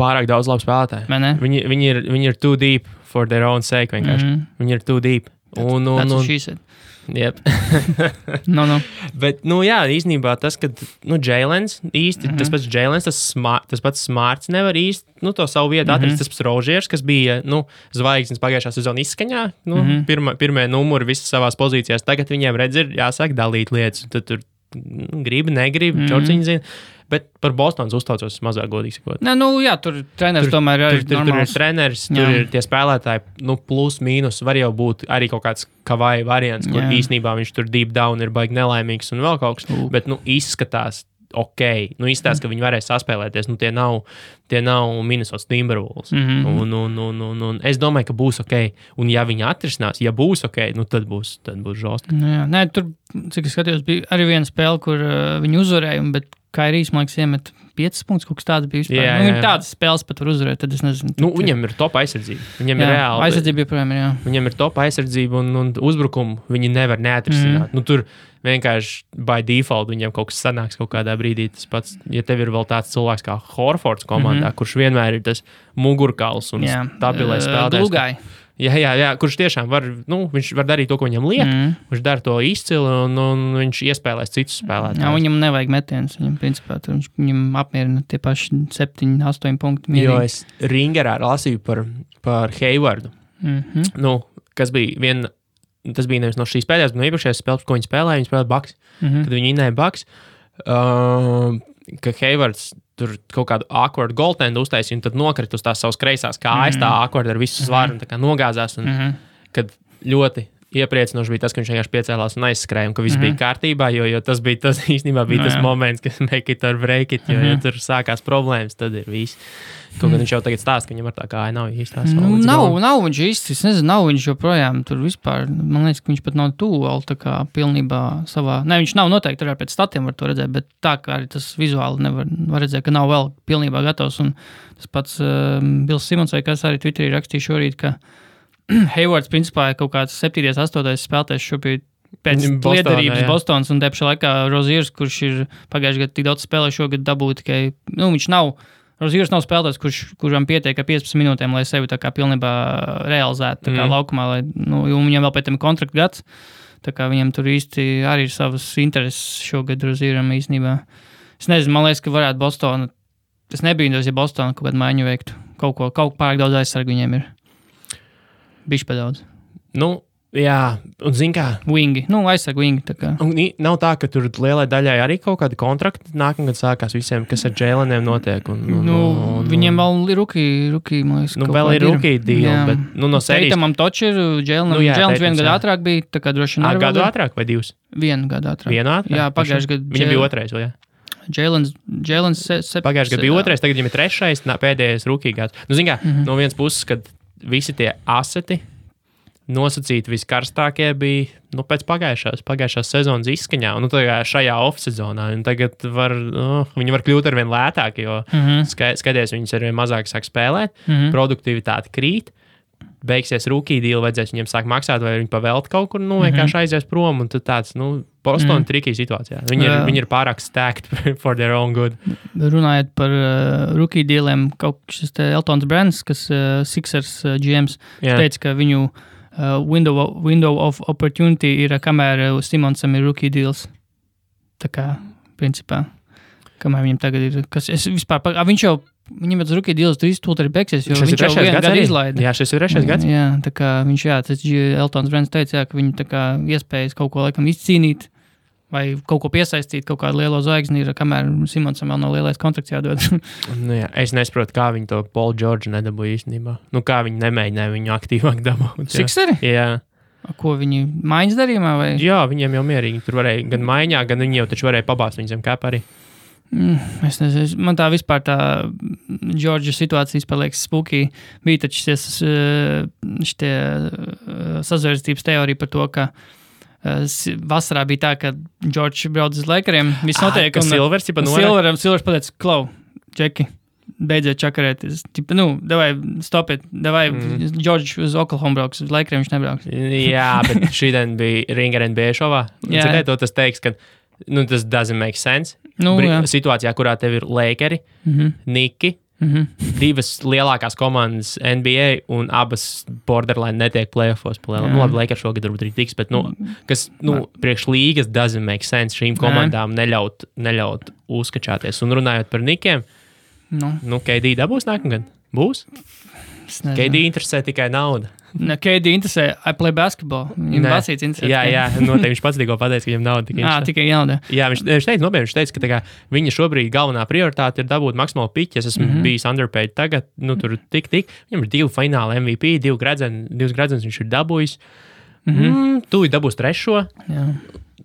Pārāk daudz labu spēlētāju. Viņi ir too deep for their own sake vienkārši. Viņi ir too deep. That's what she said. Yep. No. Bet, jā, īstenībā tas, ka, Jailens īsti, tas pats Jailens, tas pats Smarts nevar īsti, to savu vietu atrast, tas pats Rožiers, kas bija, zvaigznes pagājušā sezona izskaņā, pirmie numuri visas savās pozīcijās, tagad viņiem redz ir jāsāk dalīt lietas, tad tur gribi, negribi, čorciņi zina. Bet par Bostonas uztaucos mazāk godīgi sakot. Tur treneris tomēr ir tur ir treneris, tur ir tie spēlētāji, plus, mīnus, var jau būt arī kaut kāds Kavai variants, kur īsnībā viņš tur deep down ir baigi nelaimīgs un vēl kaut kas, bet, izskatās ok, izskatās, ka viņi varēs saspēlēties, tie nav Minnesota Timberwolves. Un es domāju, ka būs ok, un ja viņi atrisinās, ja būs ok, tad būs žostki. Nē, tur, cik es skatījos, bija arī viena spēle, kur viņi uzvarēja, bet Kairijs, man liekas, iemet 5 punktus, kaut kas tāds bija vispār. Viņi tādas spēles pat var uzvarēt, tad es nezinu. Viņam ir top aizsardzība. Viņam ir reāli. Aizsardzība joprojām ir, jā. Viņam ir top aizsardzība un uzbrukumu viņi nevar neatrisināt. Tur vienkārši by default viņam kaut kas sanāks kaut kādā brīdī. Tas pats, ja tev ir vēl tāds cilvēks kā Horfords komandā, kurš vienmēr ir tas mugurkauls un stabilais spēlētājs. Glūgai. Jā, kurš tiešām var, viņš var darīt to, ko viņam liek, viņš dara to izcili un viņš iespēlēs citus spēlētājus. Jā, viņam nevajag metienus, viņam apmierina tie paši 7-8 punkti. Mierīgi. Jo es Ringerā lasīju par Haywardu, kas bija tas bija nevis no šīs pēdējās, bet no iepriekšējās spēles, ko viņi spēlēja Bucks, kad viņi innēja Bucks, ka Haywards tur kaut kādu awkward goaltendu uztaisīja un tad nokrit uz tās savas kreisās kājas, tā awkward ar visu svaru un tā kā nogāzās. Un, kad ļoti iepriecinoši bija tas, ka viņš vienkārši piecēlās un aizskrēja, un ka viss bija kārtībā, jo tas bija tas īstenībā bija tas moments, kad make it or break it, jo ja tur sākās problēmas, tad ir viss. Kaut gan viņš jau tagad stāsta, ka viņam ar tā kāja nav īstās. Nav viņš īsti, es nezinu, nav viņš joprojām tur vispār, man liekas, ka viņš pat nav tuvu vēl tā kā pilnībā savā, ne, viņš nav noteikti, arī pēc statiem var to redzēt, bet tā kā arī tas vizuāli var redzēt, ka nav vēl pilnībā gatavs, un tas pats Bills Simons vai kas arī Twitterī rakstīja šorīt, ka Haywards principā ir kaut kāds 7. 8. spēlētājs šobrīd pēc liederības Bostonas un tepšā laikā Roziers, kurš ir pagājuši gadu tik daudz spēlē, šogad dabūja tikai, viņš nav, Roziers nav spēlētājs, kuram pietiek 15 minūtēm, lai sevi tā kā pilnībā realizētu tā kā laukumā, lai, viņam vēl pēc tam kontrakta gads, tā kā viņam tur īsti arī ir savas intereses šogad Rozieram īstenībā. Es nezinu, man liekas, ka varētu Bostona, es nebīdos, ja Bostona kaut kādu maiņu veiktu, kaut pārāk daudz aizsargu viņiem ir. Bišķi pa daudz. Jā, un zin kā? Wingi, aizsargu wingi. Tā kā. Un nav tā, ka tur lielai daļai arī kaut kādi kontrakti nākamgad sākās visiem, kas ar Jaileniem notiek. Viņiem vēl ir rookie, man liekas. Vēl ir rookie deal, bet no sērijas. Teitamam toči ir Jailenam. Jailens 1 gadu ātrāk bija, tā kā droši vien. Gadu ātrāk vai 2? 1 gadu ātrāk. 1 ātrāk? Jā, pagājuši gadu. Viņam bija 2, vai jā? Jailens pagājuši gadu bija 2, tagad viņam ir 3, pēdējais rookie gads. Zin kā, no vienas puses, kad visi tie aseti nosacīti viskarstākie bija pēc pagājušās sezonas izskaņā, un šajā off-sezonā. Tagad viņi var kļūt arvien lētāki, jo skaties, viņus arvien mazāk sāk spēlēt, produktivitāte krīt, beigsies rookie deal, vajadzēs viņiem sāk maksāt, vai viņi pavēlt kaut kur, vienkārši aizies prom, un tad tāds, Boston tricky situācijā. Viņi ir pārāk stacked for their own good. Runājot par rookie dealiem, kaut šis te Eltons Brands, kas Sixers GMs, teica, ka viņu window of opportunity ir, kamēr Simonsam ir rookie deals. Tā kā, principā, kamēr viņam tagad ir, kas es vispār, viņam ir rookie deals tūlīt arī beigsies, jo viņš jau vienu gadu izlaida. Jā, šis ir 3. gads. Jā, tā kā viņš, tas Eltons Brands teica, ka viņi tā kā iespējas kaut ko laikam izcīnīt, vai kaut ko piesaistīt, kaut kādu lielo zvaigzni ir, kamēr Simonsam vēl nav lielais kontrakts jādod. Es nesaprotu, kā viņi to Paul George nedabūja īstenībā. Kā viņi nemēģināja viņu aktīvāk dabūt. Sikseri? Jā. Ko viņi maiņas darījumā? Vai? Jā, viņiem jau mierīgi. Tur varēja gan maiņā, gan viņi jau taču varēja pabāzt viņu zem kāpa arī. Es nezinu, man tā vispār tā Džordža situācijas paliekas spooky. Bija taču šitie sazvērstības teorija par to, ka vasarā bija tā, ka Džordžs brauc uz Lakeriem. Viss notiek. Ka Silvers pateica, Klau, Džeki. Beidziet čakarēties. Davai, stopiet. Davai, Džordžs uz Oklahoma brauks, uz Lakeriem viņš nebrauks. Jā, bet šīdien bija Ringer NBA šovā. Cikai to tas teiks, ka tas doesn't make sense. Situācijā, kurā tev ir Lakeri, Niki, divas lielākās komandas NBA un abas borderline netiek playoffos. Labi, Lakers šogad varbūt arī tiks, bet priekš līgas doesn't make sense šīm komandām neļaut uzskačāties. Un runājot par Nikiem, KD dabūs nākamgad? Būs? KD interesē tikai nauda. KD interesē, I play basketball. Viņam basīts interesē. Jā, noteikti viņš pats tikko pateica, ka viņam nauda tikai interesē. Tikai nauda. Jā, viņš teica, ka viņa šobrīd galvenā prioritāte ir dabūt maksimālu piķi. Es esmu bijis underpaid tagad, tur tik. Viņam ir 2 fināla MVP, 2 gradzenes viņš ir dabūjis. Tūlīt dabūs 3. Jā.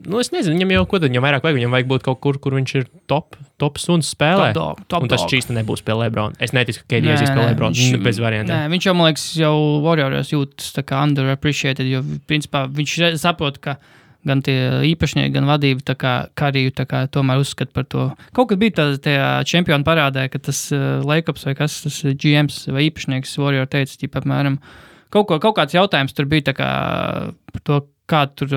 Es nezinu, viņam vairāk vajag. Viņam vajag būt kaut kur viņš ir top suns spēlē. Top un tas čīsti nebūs pie LeBron. Es neticu, ka KD aizies pie LeBron. Bez variantiem. Viņš jau, man liekas, jau Warriors jūtas tā kā underappreciated, jo principā viņš saprot, ka gan tie īpašnieki, gan vadība tā kā Kariju tā kā tomēr uzskata par to. Kaut kad bija tajā čempionu parādē, ka tas Lakers vai kas, tas GMs vai īpašnieks Warrior teica, apmēram, kaut kāds jautājums tur bija tā kā par to, kā tur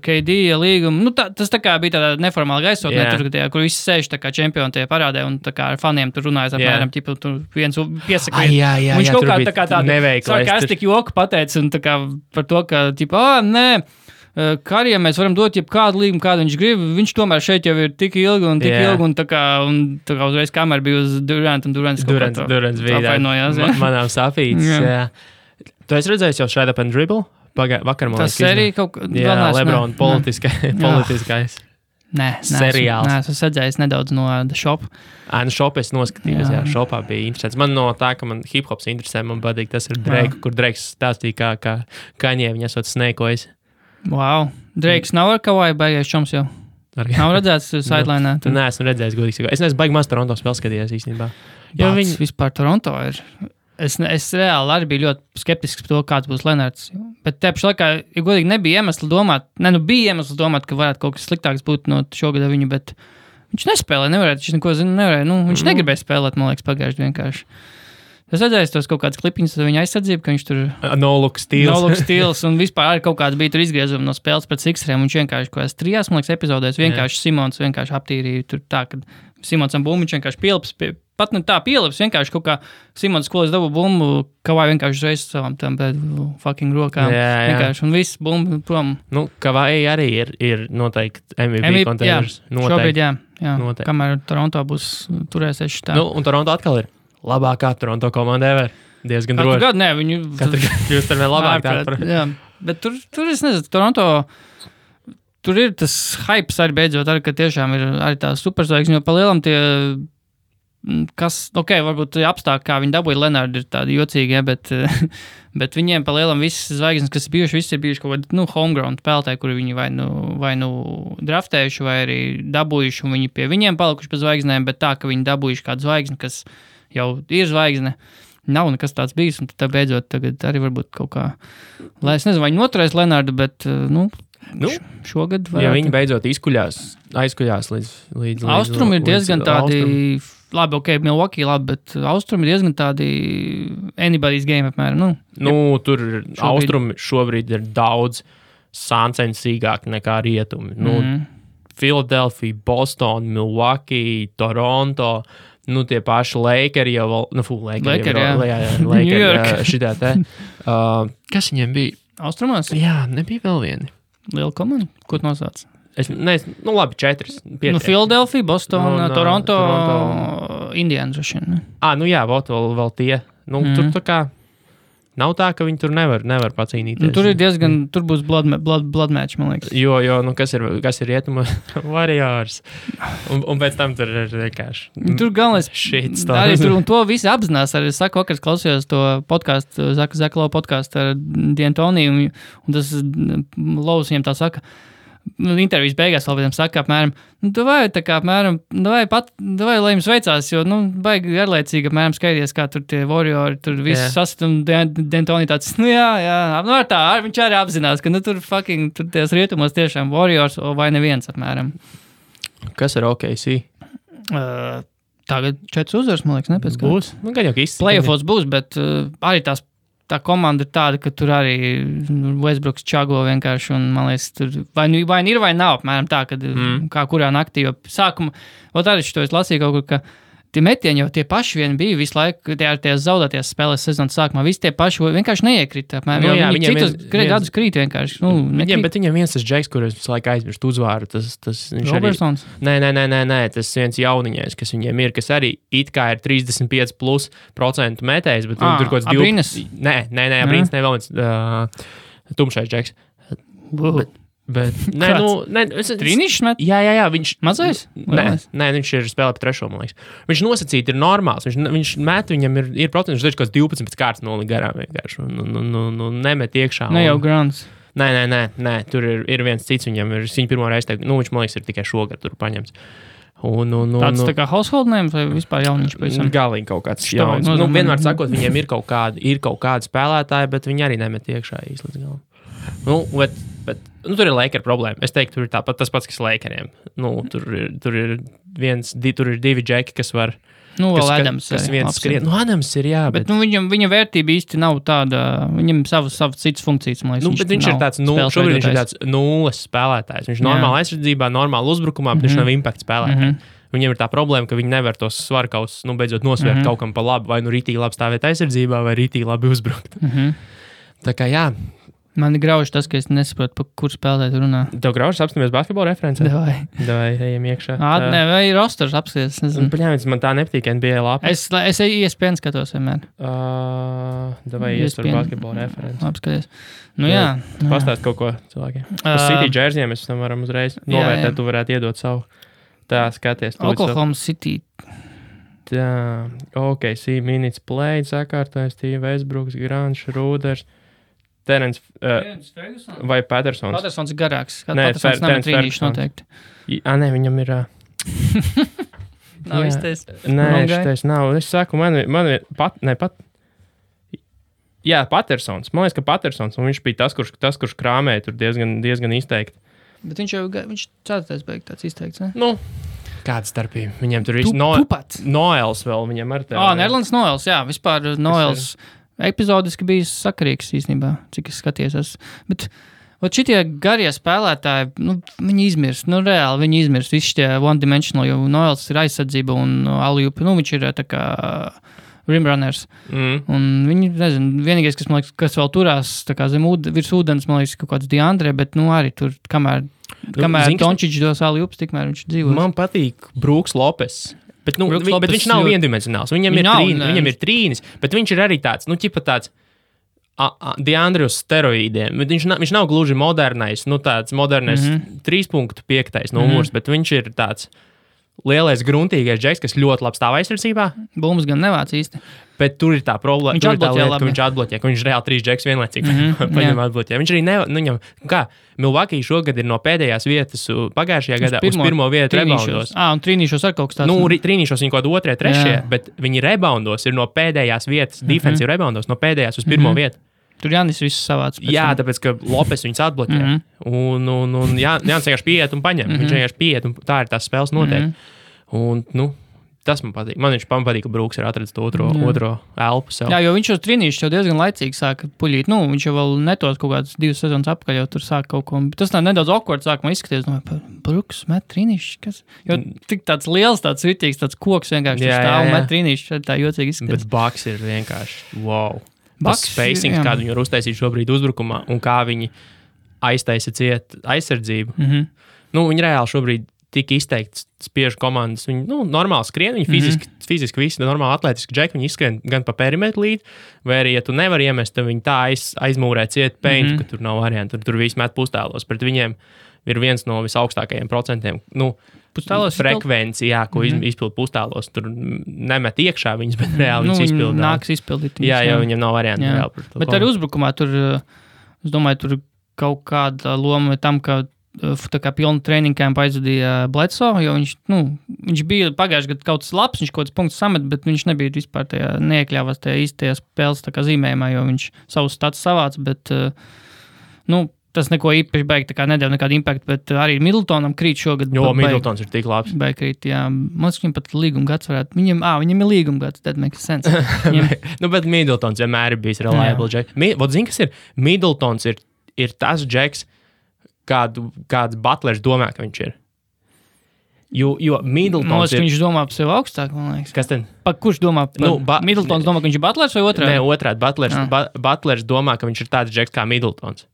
KD līguma. Tas tā kā bija tāda neformāla gaisotnē, kur visi sēž tā kā čempioni tie parādē un tā kā ar faniem tur runājas apmēram, tur viens piesaka. Viņš kaut kā tā kā tādu sarkastisku joku pateica un tā kā par to, ka nē, Karijam mēs varam dot jebkādu līgumu, kādu viņš grib. Viņš tomēr šeit jau ir tik ilgi un tā kā uzreiz kamera bija uz Durant un Durants bija apvainojās. Manām safīts. Tu esi redzējis jau Shred Up and Dribble? Vakar, man liekas, tas arī kaut kā... Jā, LeBron politiskais. Nē, seriāls. Nē, es redzējis nedaudz no The Shop. Shop es noskatījos, jā, Shopā bija interesants. Man no tā, ka man hip-hops interesē, man patīk, tas ir Drake, kur Drakes stāstīja, kā Kanye viņa esot snēkojis. Wow. Drakes nav ar Kawhi baigais čoms jau? Nav redzēts sidelinē? Nē, esmu redzējis, godīgi. Es neesmu baigi maz Toronto spēles skatījies īstenībā. Viņi vispār Toronto ir... Es reāli arī biju ļoti skeptisks par to, kāds būs Lenards. Bet te pašā laikā, ja godīgi nebija iemesli domāt, bija iemesls domāt, ka varētu kaut kas sliktāks būt no šogad viņu, bet viņš nespēlē, viņš neko nevarēja. Viņš negribēja spēlēt, man liekas, pagājuši vienkārši. Es redzēju tos kaut kādas klipiņas ar viņa aizsardzību, ka viņš tur... No look steals. Un vispār arī kaut kāds bija tur izgriezumi no spēles pret Sixeriem. Viņš vienkārši, ko es 3, man liekas, epizodēs, vienkārši Simons vienkārši aptīrīja tur tā, ka Simonsam bumbu viņš vienkārši pielips, pat ne tā pielips, vienkārši kaut kā Simons skolas dabu bumbu, Kawhi vienkārši uzreiz savām tam fucking rokām. Vienkārši, un viss bumbu prom. Kawhi arī ir noteikti MVP kontenders. Šobrīd, jā. Kamēr Toronto būs turēsies šitā. Un Toronto atkal ir labākā Toronto komanda ever. Diezgan droši. Katru gadu, nē, viņu... Katru gadu kļūst ar vien labāk. Jā, bet tur es nezinu, Toronto... Tur ir tas hypes arī beidzot, arī, ka tiešām ir arī tā superzvaigzne, jo pa lielam tie, varbūt apstākļi, kā viņi dabūja Lenardu, ir tādi jocīgi, bet viņiem pa lielam visas zvaigznes, kas ir bijuši kaut kādi, homegrown spēlētāji, kuri viņi vai nu draftējuši, vai arī dabūjuši, un viņi pie viņiem palikuši pēc zvaigznēm, bet tā, ka viņi dabūjuši kādu zvaigzni, kas jau ir zvaigzne, nav nekas tāds bijis, un tad beidzot tagad arī varbūt kaut kā, lai es nezinu, vai viņi noturēs Lenardu, bet, šogad varētu. Ja viņi beidzot aizkuļās līdz Austrumi ir diezgan tādi, labi, Milwaukee labi, bet Austrumi ir diezgan tādi anybody's game apmēram. Tur Austrumi šobrīd ir daudz sāncensīgāk nekā rietumi. Philadelphia, Boston, Milwaukee, Toronto, tie paši Lakeri jau Lakeri šitā te. Kas viņiem bija? Austrumos? Jā, nebija vēl vieni. Liela komanda? Ko tu nosauc? Labi, 4. Philadelphia, Boston, Toronto, Indiana droši vien. Jā, vēl tie. Tur tā kā nav tā, ka viņi tur nevar pacīnīties. Tur ir diezgan, tur būs blood match, man liekas. Jo, kas ir rietuma Warriors. Un pēc tam tur ir vienkārši. Tur galvenais shit arī tur, un to visi apzinās. Arī es saku, vakar klausījos to podcastu, Zaka Lau podcastu ar D'Antoni, un tas Laus viņam tā saka, intervijas beigās vēl viņam saka apmēram, davai, lai jums veicās, jo, baigi garlaicīgi apmēram skaities, kā tur tie Warriori, tur viss sast, un D'Antoni tāds, viņš arī apzinās, ka, tur ties rietumos tiešām Warriors vai neviens apmēram. Kas ir OKC? Tagad 4 uzvaras, man liekas, nepēc kā. Būs? Gan jau īsti. Playoffs būs, bet arī tā komanda ir tāda, ka tur arī Westbrooks čago vienkārši, un man liekas, tur vai ir vai nav, apmēram tā, kad kā kurā naktī, jo sākuma, arī šito es lasīju kaut kur, ka tie metieni jau tie paši vien bija visu laiku, tie zaudēties spēlēs sezonas sākumā, visi tie paši vienkārši neiekrita, apmēram, jo viņi citus gadus krīt vienkārši, bet viņam viens tas džeks, kurus visu laiku aizmirst uzvāru, tas Robertsons? Nē, tas viens jauniņais, kas viņiem ir, kas arī it kā ir 35% metējs, bet tur kaut kāds Abrīnas? Nē, Abrīnas, ne vēl viens tumšais džeks. Bet, Trīnišs met? Jā, viņš... Mazais? Nē, viņš ir spēlē pa trešo, man liekas. Viņš nosacīti ir normāls, viņš met, viņam ir procents, viņš kaut kāds 12 kārtas noli garām vienkārši, un nemet iekšā. Ne jau Grants. Nē, tur ir viens cits, viņam ir, viņa pirmo reizi teikt, viņš, man liekas, ir tikai šogad tur paņemts. Tāds tā kā household name vai vispār jauniņš pavisam? Galīgi kaut kāds jauns. Vienmēr sakot, viņiem ir kaut kādi spēlētāji, bet viņi arī nemet iekšā īsti līdz galam. Bet tur ir Laker problēma. Es teiktu, tur ir tāpat tas pats, kas Lakeriem. Tur ir 2 džeki, kas var... vēl Adams. Kas viens skrien. Adams ir, jā. Bet viņa vērtība īsti nav tāda... Viņam savas citas funkcijas, man liekas. Bet viņš ir tāds, šobrīd viņš ir tāds nulles spēlētājs. Viņš normāli aizsardzībā, normāli uzbrukumā, bet viņš nav impact spēlētājs. Viņam ir tā problēma, ka viņi nevar tos svarkaus, beidzot nosvērt kaut kam pa labi, vai rītīgi labi stāvēt aizsardzībā, vai rītīgi labi uzbrukt. Tā kā jā. Man ir grauži tas, ka es nesaprotu, par kur spēlēt runā. Tev graužas apstāmies basketbola referencē? Davai, ejam iekšā. Vai rosters apskaties? Paņēmis, man tā nepatīk NBA lapa. Es ESPN skatos vienmēr. Davai iesver basketbola referenci. Apskaties. Jā. Pastāst kaut ko cilvēkiem. Uz City džerziem mēs tam varam uzreiz novērtēt, tu varētu iedot savu. Tā, skaties. Oklahoma City. Tā, OKC minutes play, sakārtojas, Steve Westbrooks, Grants, Rūders. Terence vai Pattersons? Pattersons ir garāks. Pattersons nav trīnīšs noteikti. Nē, viņam ir... Nav izteicis. Nē, šitais nav. Es saku, Jā, Pattersons. Man liekas, ka Pattersons, un viņš bija tas, kurš krāmēja tur diezgan izteikti. Bet viņš ceturtais beig tāds izteikts, ne? Kāda starpība? Viņam tur viss... Noels vēl, viņam ar tev. Nerlands Noels, jā. Vispār Noels... Epizodiski bija sakarīgs īstenībā, cik es skatījos. Bet šitie garie spēlētāji, viņi izmirst, reāli viņi izmirst. Visi šitie one-dimensional, jo Noels ir aizsardzība un alley-oop, viņš ir tā kā rimrunners. Un viņi, nezinu, vienīgais, kas, man liekas, kas vēl turās tā kā virs ūdens, man liekas, kaut kāds Deandre, bet arī tur, kamēr Dončić dos alley-oops, tikmēr viņš dzīvos. Man patīk Brooks Lopes. Bet viņš nav viendimensionāls. Viņam ir trīnis, bet viņš ir arī tāds, tāds Deandre uz steroīdiem. Bet viņš nav gluži modernais, tāds modernais 3.5 numurs, bet viņš ir tāds lielais gruntīgais džeks, kas ļoti labi stāv aizsardzībā. Bums gan nevāc īsti. Bet tur ir tā problēma, viņš atbloķē, ka viņš reāli 3 džeks vienlaicīgi paņem atbloķē. Viņš arī Milwaukee šogad ir no pēdējās vietas pagājušajā gadā uz pirmo vietu reboundos. Un trīnīšos ar kaut kas tāds. Trīnīšos viņi kaut 2, 3, bet viņi reboundos ir no pēdējās vietas, defensive reboundos, no pēdējās uz pirmo vietu. Tur Jānis viss savāds. Jā, tāpēc, ka Lopes viņus atbloķē. Un Jānis vienkārši pieiet un paņem. Viņš vienkārši pieiet un tā ir tās spēles noteikti. Un, tas man patīk. Man patīk, ka Brooks ir atradzis to otro elpu sev. Jā, jo viņš jau trīnīšs jau diezgan laicīgi sāka puļīt. Viņš jau vēl netos kaut kādas 2 sezonas apakaļ jau tur sāka kaut ko. Tas tā nedaudz awkward sākumā izskaties. Brooks met trīnīšs, kas? Jo tik tāds liels, tāds ritīgs, tāds koks vienkārši stāv un met trīnīšs. Tā jocīgi izskaties. Bet Bucks ir vienkārši wow. Tas spacings, kādu viņi var uztaisīt šobrīd uzbrukumā un kā viņi aiztaisa ciet aizsardzību. Viņi reāli šobrīd tik izteikti spiež komandas. Viņi normāli skrien, viņi fiziski fiziski visi normāli atlētiski džeki, viņi izskrien gan pa perimetru līdzi, vai arī, ja tu nevari iemest, tad viņi tā aizmūrē ciet peintu, ka tur nav variantu, tur visi met pustēlos. Pret viņiem ir viens no visaugstākajiem procentiem. Frekvenci, jā, ko izpild pustēlos. Tur nemet iekšā viņas, bet reāli viņas izpildīt. Nāks izpildīt. Jā, jo viņam nav variantu. Reāli, bet arī uzbrukumā tur, es domāju, tur kaut kāda loma tam, ka tā kā pilnu treniņu kampu aizvadīja Bledsoe, jo viņš bija pagājuši gadu kaut kas labs, viņš kaut kāds punkts samet, bet viņš nebija vispār neiekļāvās tajā īstajā spēles zīmējumā, jo viņš savus stats savāc, bet, tas neko īpaši baigi, tā kā nedēļ nekādu impaktu, bet arī Middletonam krīt šogad. Jo, Middletons ir tik labs. Baigi krīt, jā. Mums viņam pat līguma gads varētu. Viņam ir līguma gads, that makes sense. Bet Middletons vienmēr ir bijis reliable jack. Zini, kas ir? Middletons ir tas jacks, kāds Butlers domā, ka viņš ir. Jo Middletons viņš domā par sevi augstāk, man liekas. Kas tad? Kurš domā? Middletons domā, ka viņš ir Butlers vai otrādi? Nē, otrādi. Butlers domā, ka viņš ir tāds džeks kā Middletons.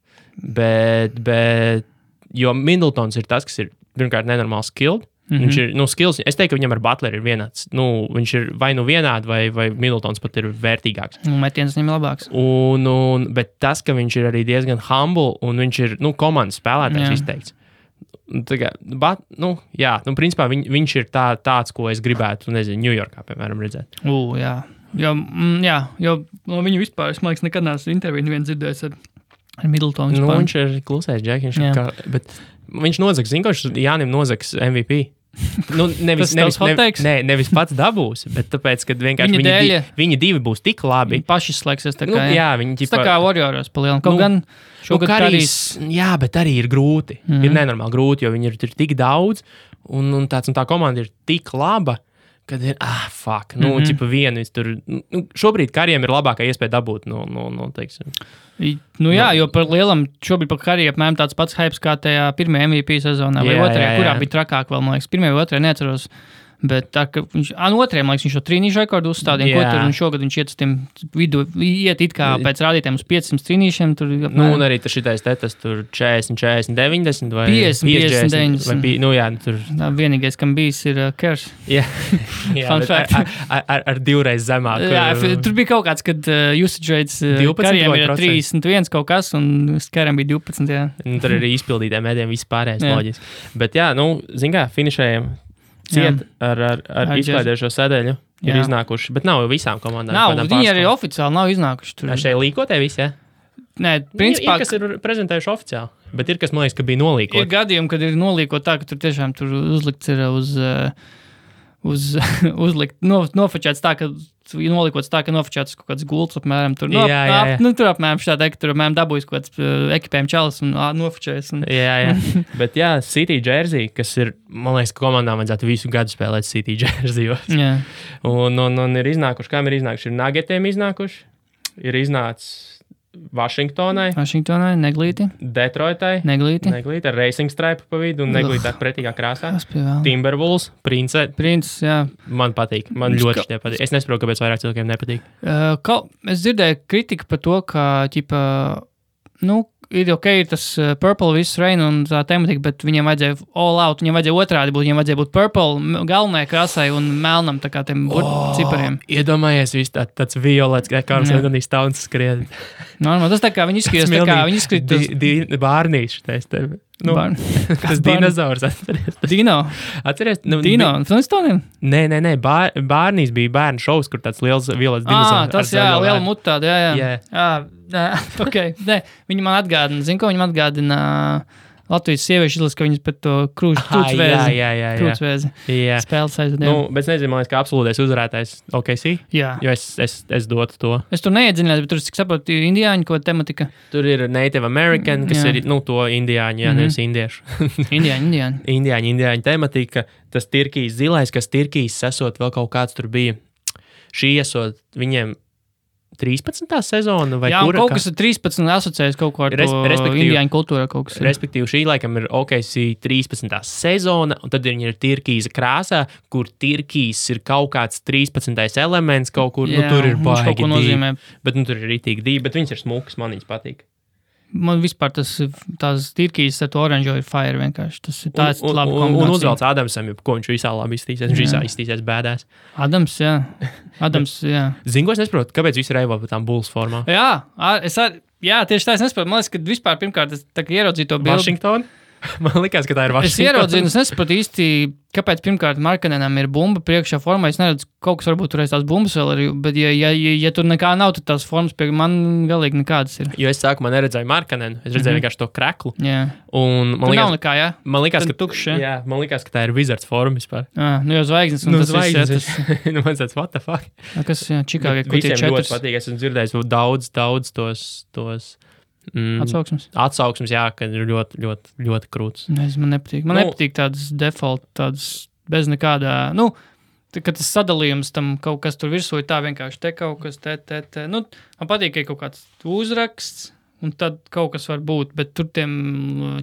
Jo Middletons ir tas, kas ir pirmkārt nenormāli skilled. Viņš ir, skills, es teiktu, ka viņam ar Butleri ir vienāds. Viņš ir vai vienādi, vai Middletons pat ir vērtīgāks. Metiens viņam ir labāks. Bet tas, ka viņš ir arī diezgan humble, un viņš ir, komandas spēlētājs izteikts. Principā viņš ir tāds, ko es gribētu, Ņujorkā, piemēram, redzēt. Jā. Jo no viņu vispār, es man liekas, nekad neesmu interviju nevienu dzirdējis ar Middletonu. Viņš ir klusais džeks, bet viņš nozags, Jānim nozags MVP. Nevis pats dabūs, bet tāpēc, ka vienkārši viņi divi būs tik labi. Viņi paši slēgsies tā kā. Viņi tā kā Warriors palielam. Kaut gan šogad Karīs. Jā, bet arī ir grūti. Ir nenormāli grūti, jo viņi ir tik daudz, un tā komanda ir tik laba, kad ir, fuck, vienu tur, šobrīd Kariem ir labākā iespēja dabūt, teiksim. Jo par lielam, šobrīd par Kariem apmēram tāds pats hypes kā tajā pirmajā MVP sezonā, vai otrajā, kurā bija trakāk vēl, man liekas, pirmajā vai otrajā neatceros. Bet tā, ka viņš, otrajam, man liekas, viņš šo trīnīšu rekordu uzstādīja, un šogad viņš iet uz tiem vidu, iet it kā pēc rādītājiem uz 500 trīnīšiem. Tur, un arī šitais tetas tur 40, 40, 90 vai 50, 90. Tur. Vienīgais, kam bijis, ir Kers. Jā, ar divreiz zemāk. Tur bija kaut kāds, kad usage rates Kariem ir 31 kaut kas, un Kariem bija 12, jā. Tur arī izpildītiem mēdiem viss pārējais loģiski. Bet zin kā, finišējiem. Ciet ar izklaidējušo sēdeļu ir iznākuši, bet nav visām komandām. Viņi arī oficiāli nav iznākuši. Tur. Šeit līkotē visi, Nē, principā. Ir kas ir prezentējuši oficiāli, bet ir kas, man liekas, ka bija nolīkot. Ir gadījumi, kad ir nolīkot tā, ka tur tiešām tur uzlikts ir nofočēts tā, ka nolikots tā, ka nofočēts kaut kāds gults apmēram tur. Tur apmēram šādā, ka tur apmēram dabūjis kaut kāds ekipējuma čalis un nofočējas. Jā. Bet City Jersey, kas ir, man liekas, ka komandām vajadzētu visu gadu spēlēt City Jerseyos. Jā. Un ir iznākuši, kam ir iznākuši? Ir Nuggetiem iznākuši, ir iznācis Vašingtonai, Neglīti. Detroitai, Neglīti, ar Racing Stripe pa vidu un Neglīti ar pretīgā krāsā. Timberwolves, Prince, jā. Man patīk, man ļoti tie patīk. Es nesaprotu, kāpēc vairāk cilvēkiem nepatīk. Es dzirdēju kritiku par to, ka, ir ir tas purple viss reina un tā tematika, bet viņiem vajadzēja all out, viņiem vajadzēja otrādi būt, viņiem vajadzēja būt purple galvenajai krāsai un melnam tā kā tiem cipariem. Iedomājies viss tāds violets, kā Karls Anthony Towns skrien. Tas tā kā viņi izskatījās, Bārnīši tais tevi. Tas dinozaurs atceries. Dino. Atceries? Dino un Flintstoniem? Nē. Bārnīs bija bērnu šovs, kur tāds liels violets dinozaurs. Tas liela mutā, jā. Okay. Viņi man atgādina, zinu, ko viņi man atgādina Latvijas sieviešu izlas, ka viņas pēc to krūtsvēzi spēles aizvadījām. Bet nezinu, man liekas, ka absolūtais uzvarētājs OKC. Jā. Jo es dotu to. Es tur neiedziļinās, bet tur, cik saprotu, indiāņu ko tematika. Tur ir Native American, kas ir, to indiāņu, nevis indiešu. Indiāņu tematika. Tas Tirkijas zilais, kas Tirkijas esot vēl kaut kāds tur bija. Šī esot viņiem 13. sezona vai kura? Jā, kaut kas ir 13 asociējas kaut ko ar to indiāņu kultūru kaut kas. Respektīvi, šī laikam ir OKC 13. sezona, un tad viņi ir Tirkijas krāsā, kur Tirkijas ir kaut kāds 13. elements kaut kur, tur ir baigi dīvi. Bet tur ir ritīgi dīvi, bet viņas ir smukas, man viņas patīk. Man vispār tās tirkīs ar to oranžo ir fire vienkārši. Tas ir tāds labi kombinācija. Un uzvelc Adamsam, ko viņš visā labi iztīsies. Viņš visā iztīsies bēdās. Adams, jā. Zinu, ko es nesaprotu, kāpēc visi reivo par tām Bulls formām? Jā, tieši tā es nesaprotu. Man liekas, ka vispār pirmkārt es tā kā ieraudzīju to bildi. Washington? Man likās, ka tā ir Washington. Es ieraudzīju, es nesaprotu īsti, kāpēc pirmkārt Markkanenam ir bumba priekšā formā. Es neredzu, kaut kas varbūt turēs tās bumbas vēl arī, bet ja tur nekā nav, tad tās formas pie man galīgi nekādas ir. Jo es sākumā neredzēju Markkanenu, es redzēju vienkārši to kreklu. Jā. Un man likās, nav nekā, jā? Man likās, ka tukšs, jā, man likās, ka tā ir Wizards forma vispār. Nu jau zvaigznes. Un tas zvaigznes. Nu man tāds, what the fuck? Kas, jā, Čikāgai, kur tie 4. Visiem ļoti patīk, es esmu dzirdējis daudz tos Atsauksmes, jā, ka ir ļoti, ļoti, ļoti krūts. Man nepatīk. Man nepatīk tādas default, tādas bez nekādā, kad tas sadalījums tam kaut kas tur virsū ir tā vienkārši te kaut kas, te. Man patīk, ka ir kaut kāds uzraksts, un tad kaut kas var būt, bet tur tiem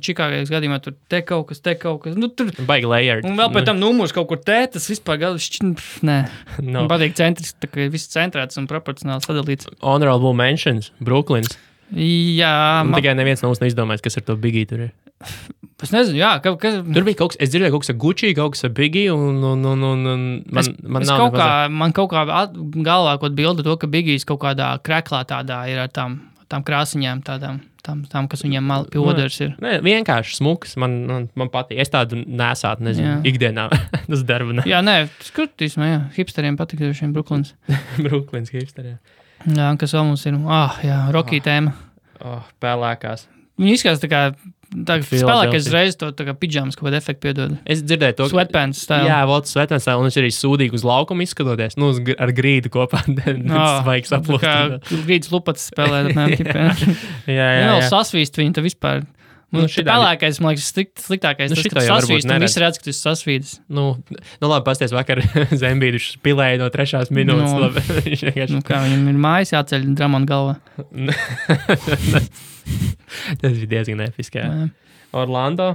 Čikāgais gadījumā tur te kaut kas. Tur baigi layered. Un vēl pēc tam numurs kaut kur te, tas vispār nē. Man patīk centrs, tā kā viss centrēts un proporcionāli sadalīts. Honorable mentions, Brooklyns. Jā. Tikai neviens no mums neizdomājis, kas ar to Biggie tur ir. Es nezinu, jā. Tur bija kaut kas, es dzirdēju kaut kas ar Gucci, kaut kas ar Biggie, un man kaut kā galvā kaut bilda to, ka Biggies kaut kādā kreklā tādā ir ar tām krāsiņām tādām, kas viņiem pie oderas ir. Nē, vienkārši smuks, man patīk. Es tādu nesātu, nezinu, ikdienā. Tas darba ne. Jā, nē, skatīsim, jā. Hipsteriem patīk šiem Brooklyns. Brooklyns hipsteriem. Jā, kas vēl mums ir? Rocky tēma. Pelēkās. Viņi izskatās tā kā spēlēkais reiz to tā kā pidžamas kaut kādu efektu piedod. Es dzirdēju to. Sweatpants style. Jā, sweatpants style, un viņš arī sūdīgi uz laukumu izskatoties. Ar grīdu kopā. Svaigs aplūst. Kā grīdas lupats spēlē. Jā. Vēl sasvīst viņu, tā vispār. Pelēkais, man liekas, sliktākais. Tas, ka tu sasvīst, un visi redz, ka tu sasvīdis. Labi, pasties vakar Zembīduši pilēja no 3. minūtes. Kā viņam ir mājas jāceļ Dramona galvā. Tas bija diezgan episki. Orlando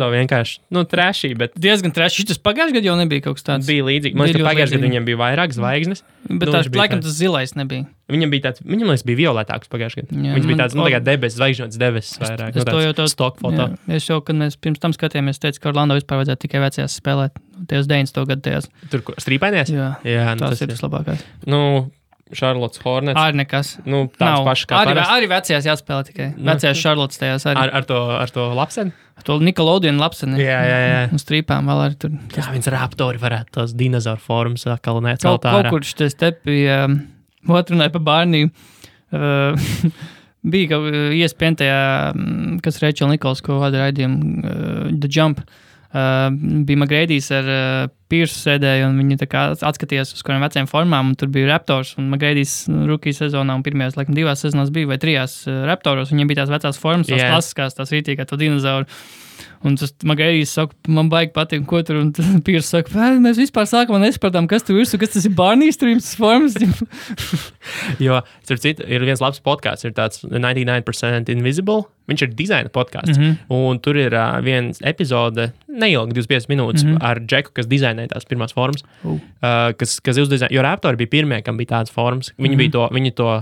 vienkārši, trešī, bet... Diezgan trešī. Tas pagājušajā gadā jau nebija kaut kas tāds. Bija līdzīgi. Man liekas, ka pagājušajā gadā viņiem bija vairāk zvaigznes. Bet laikam tas zilais nebija. Viņam liekas, bija violetāks pagājušajā gadā. Viņš bija tāds, tā kā debesis, zvaigžņots debesis vairāk. Es to jau to stock foto. Es jau, kad mēs pirms tam skatījāmies, teicu, ka Orlando vispār vajadzētu tikai vecajās spēlēt. Tajos 90. gadu tajās. Tur strīpainies? Jā, tas ir tas labākais. Charlottes Hornets. Arī nekas. Tāds pašs kā parasti. Arī vecajās jāspēlē tikai. Vecajās Charlottes tajās arī. Ar to lapseni? Ar to Nickelodeon lapseni. Jā. Un strīpām vēl arī tur. Jā, viņas raptori varētu tos dinozauru formas atkal necelt ārā. Kaut kur šitais te bija, otrunāja pa Barniju, bija kaut ESPN tajā, kas Rachel Nichols, ko vada raidījumu, The Jump. Bija McGrady's ar Piersu sēdēju, un viņi tā kā atskatījās uz kādiem veciem formām, un tur bija Raptors, un McGrady's rookie sezonā, un pirmajās, laikam, 2 sezonās bija, vai 3 Raptoros, viņiem bija tās vecās formas, tās klasiskās, tās rītīgā, to dinozauru. Un tas McGrady's saka, man baigi patīk, ko tur, un Piersu saka, mēs vispār sākumā nesapratām, kas tur virsū, kas tas ir Barney's streams, tas formas. Jo, starp citu, ir viens labs podcasts, ir tāds 99% Invisible, viņš ir dizaina podcasts, un tur ir viens epizode, neilgi 25 minūtes, ar Džeku, kas dizainēja tās pirmās formas, kas uzdizainēja, jo Raptori bija pirmie, kam bija tādas formas, viņi to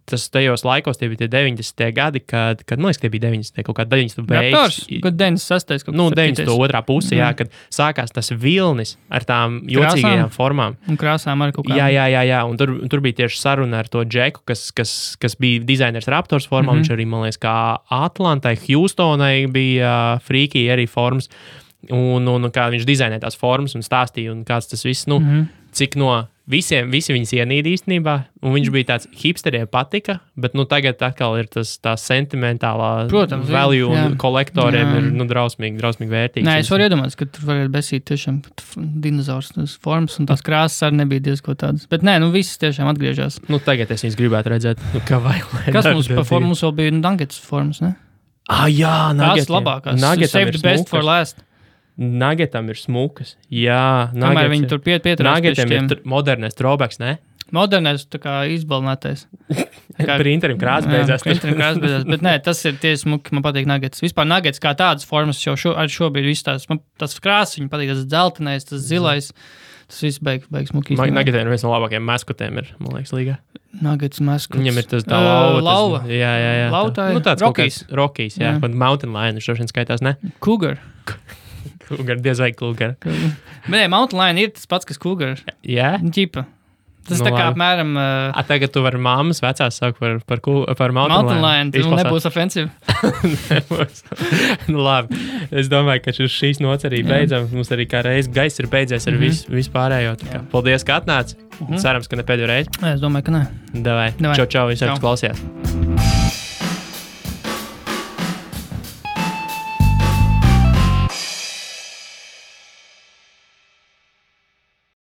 tas tajos laikos, tie bija tie 90. gadi, kad man liekas, tie bija 90. kaut kā 90. beigas. Kad 96. kaut kas 92. puse, jā, kad sākās tas vilnis ar tām jocīgajām formām. Un krāsām arī kaut kā. Jā, un tur bija tieši saruna ar to Džeku, kas bija dizainers Raptors formā, viņš arī, man liekas, kā Atlantai, Houstonai bija frīkī arī formas, un kā viņš dizainēja tās formas un stāstīja, un kāds tas viss, cik no visi viņas ienīd īstenībā, un viņš bija tāds hipsteriem patika, bet tagad atkal ir tā sentimentālā value un kolektoriem ir drausmīgi vērtīgs. Nē, es varu iedomāties, ka tur varētu besīt tiešām dinozaurs formas, un tās krāsas arī nebija diezko tādas. Bet nē, visas tiešām atgriežas. Tagad es viņas gribētu redzēt, kā vajag. Kas mums pa formu? Mums vēl bija Nuggets formas, ne? Jā, Nuggets. Tās labākās. Save the best for last. Nuggetam ir smukas. Jā, kamēr viņi tur pieturās. Nuggetam ir modernais throwbacks, ne? modernais, tā kā izbalnētais. Printerim krāsa beidzās. Bet nē, tas ir tieši smuki, man patīk nuggets. Vispār nuggets kā tādas formas jau šobrīd viss tās, man tas krāsas, viņam patīk tas dzeltenais, tas zilais. Tas viss beigs smuki. Nuggetiem viens no labākajiem maskotiem ir, man liekas, līgā. Nuggets maskots. Viņam ir tas tā lauva. Jā. Lauta ir Rockies, jā. Mountain Lion, viņš šodien skaitās, ne? Cougar, diez vai Cougar. Nē, Mountain Lion ir tas pats, kas Cougar. Jā? Ģipa. Tas tā kā apmēram... Tagad tu vari mammas vecās saukt par Mountain Lion. Tas nebūs ofensīvi. Nebūs. Labi. Es domāju, ka šīs nots arī beidzam. Mums arī kā reiz gaiss ir beidzies ar visu pārējo. Paldies, ka atnāci. Cerams, ka ne pēdējo reizi. Es domāju, ka nē. Davai. Čau, visi, kas klausījās.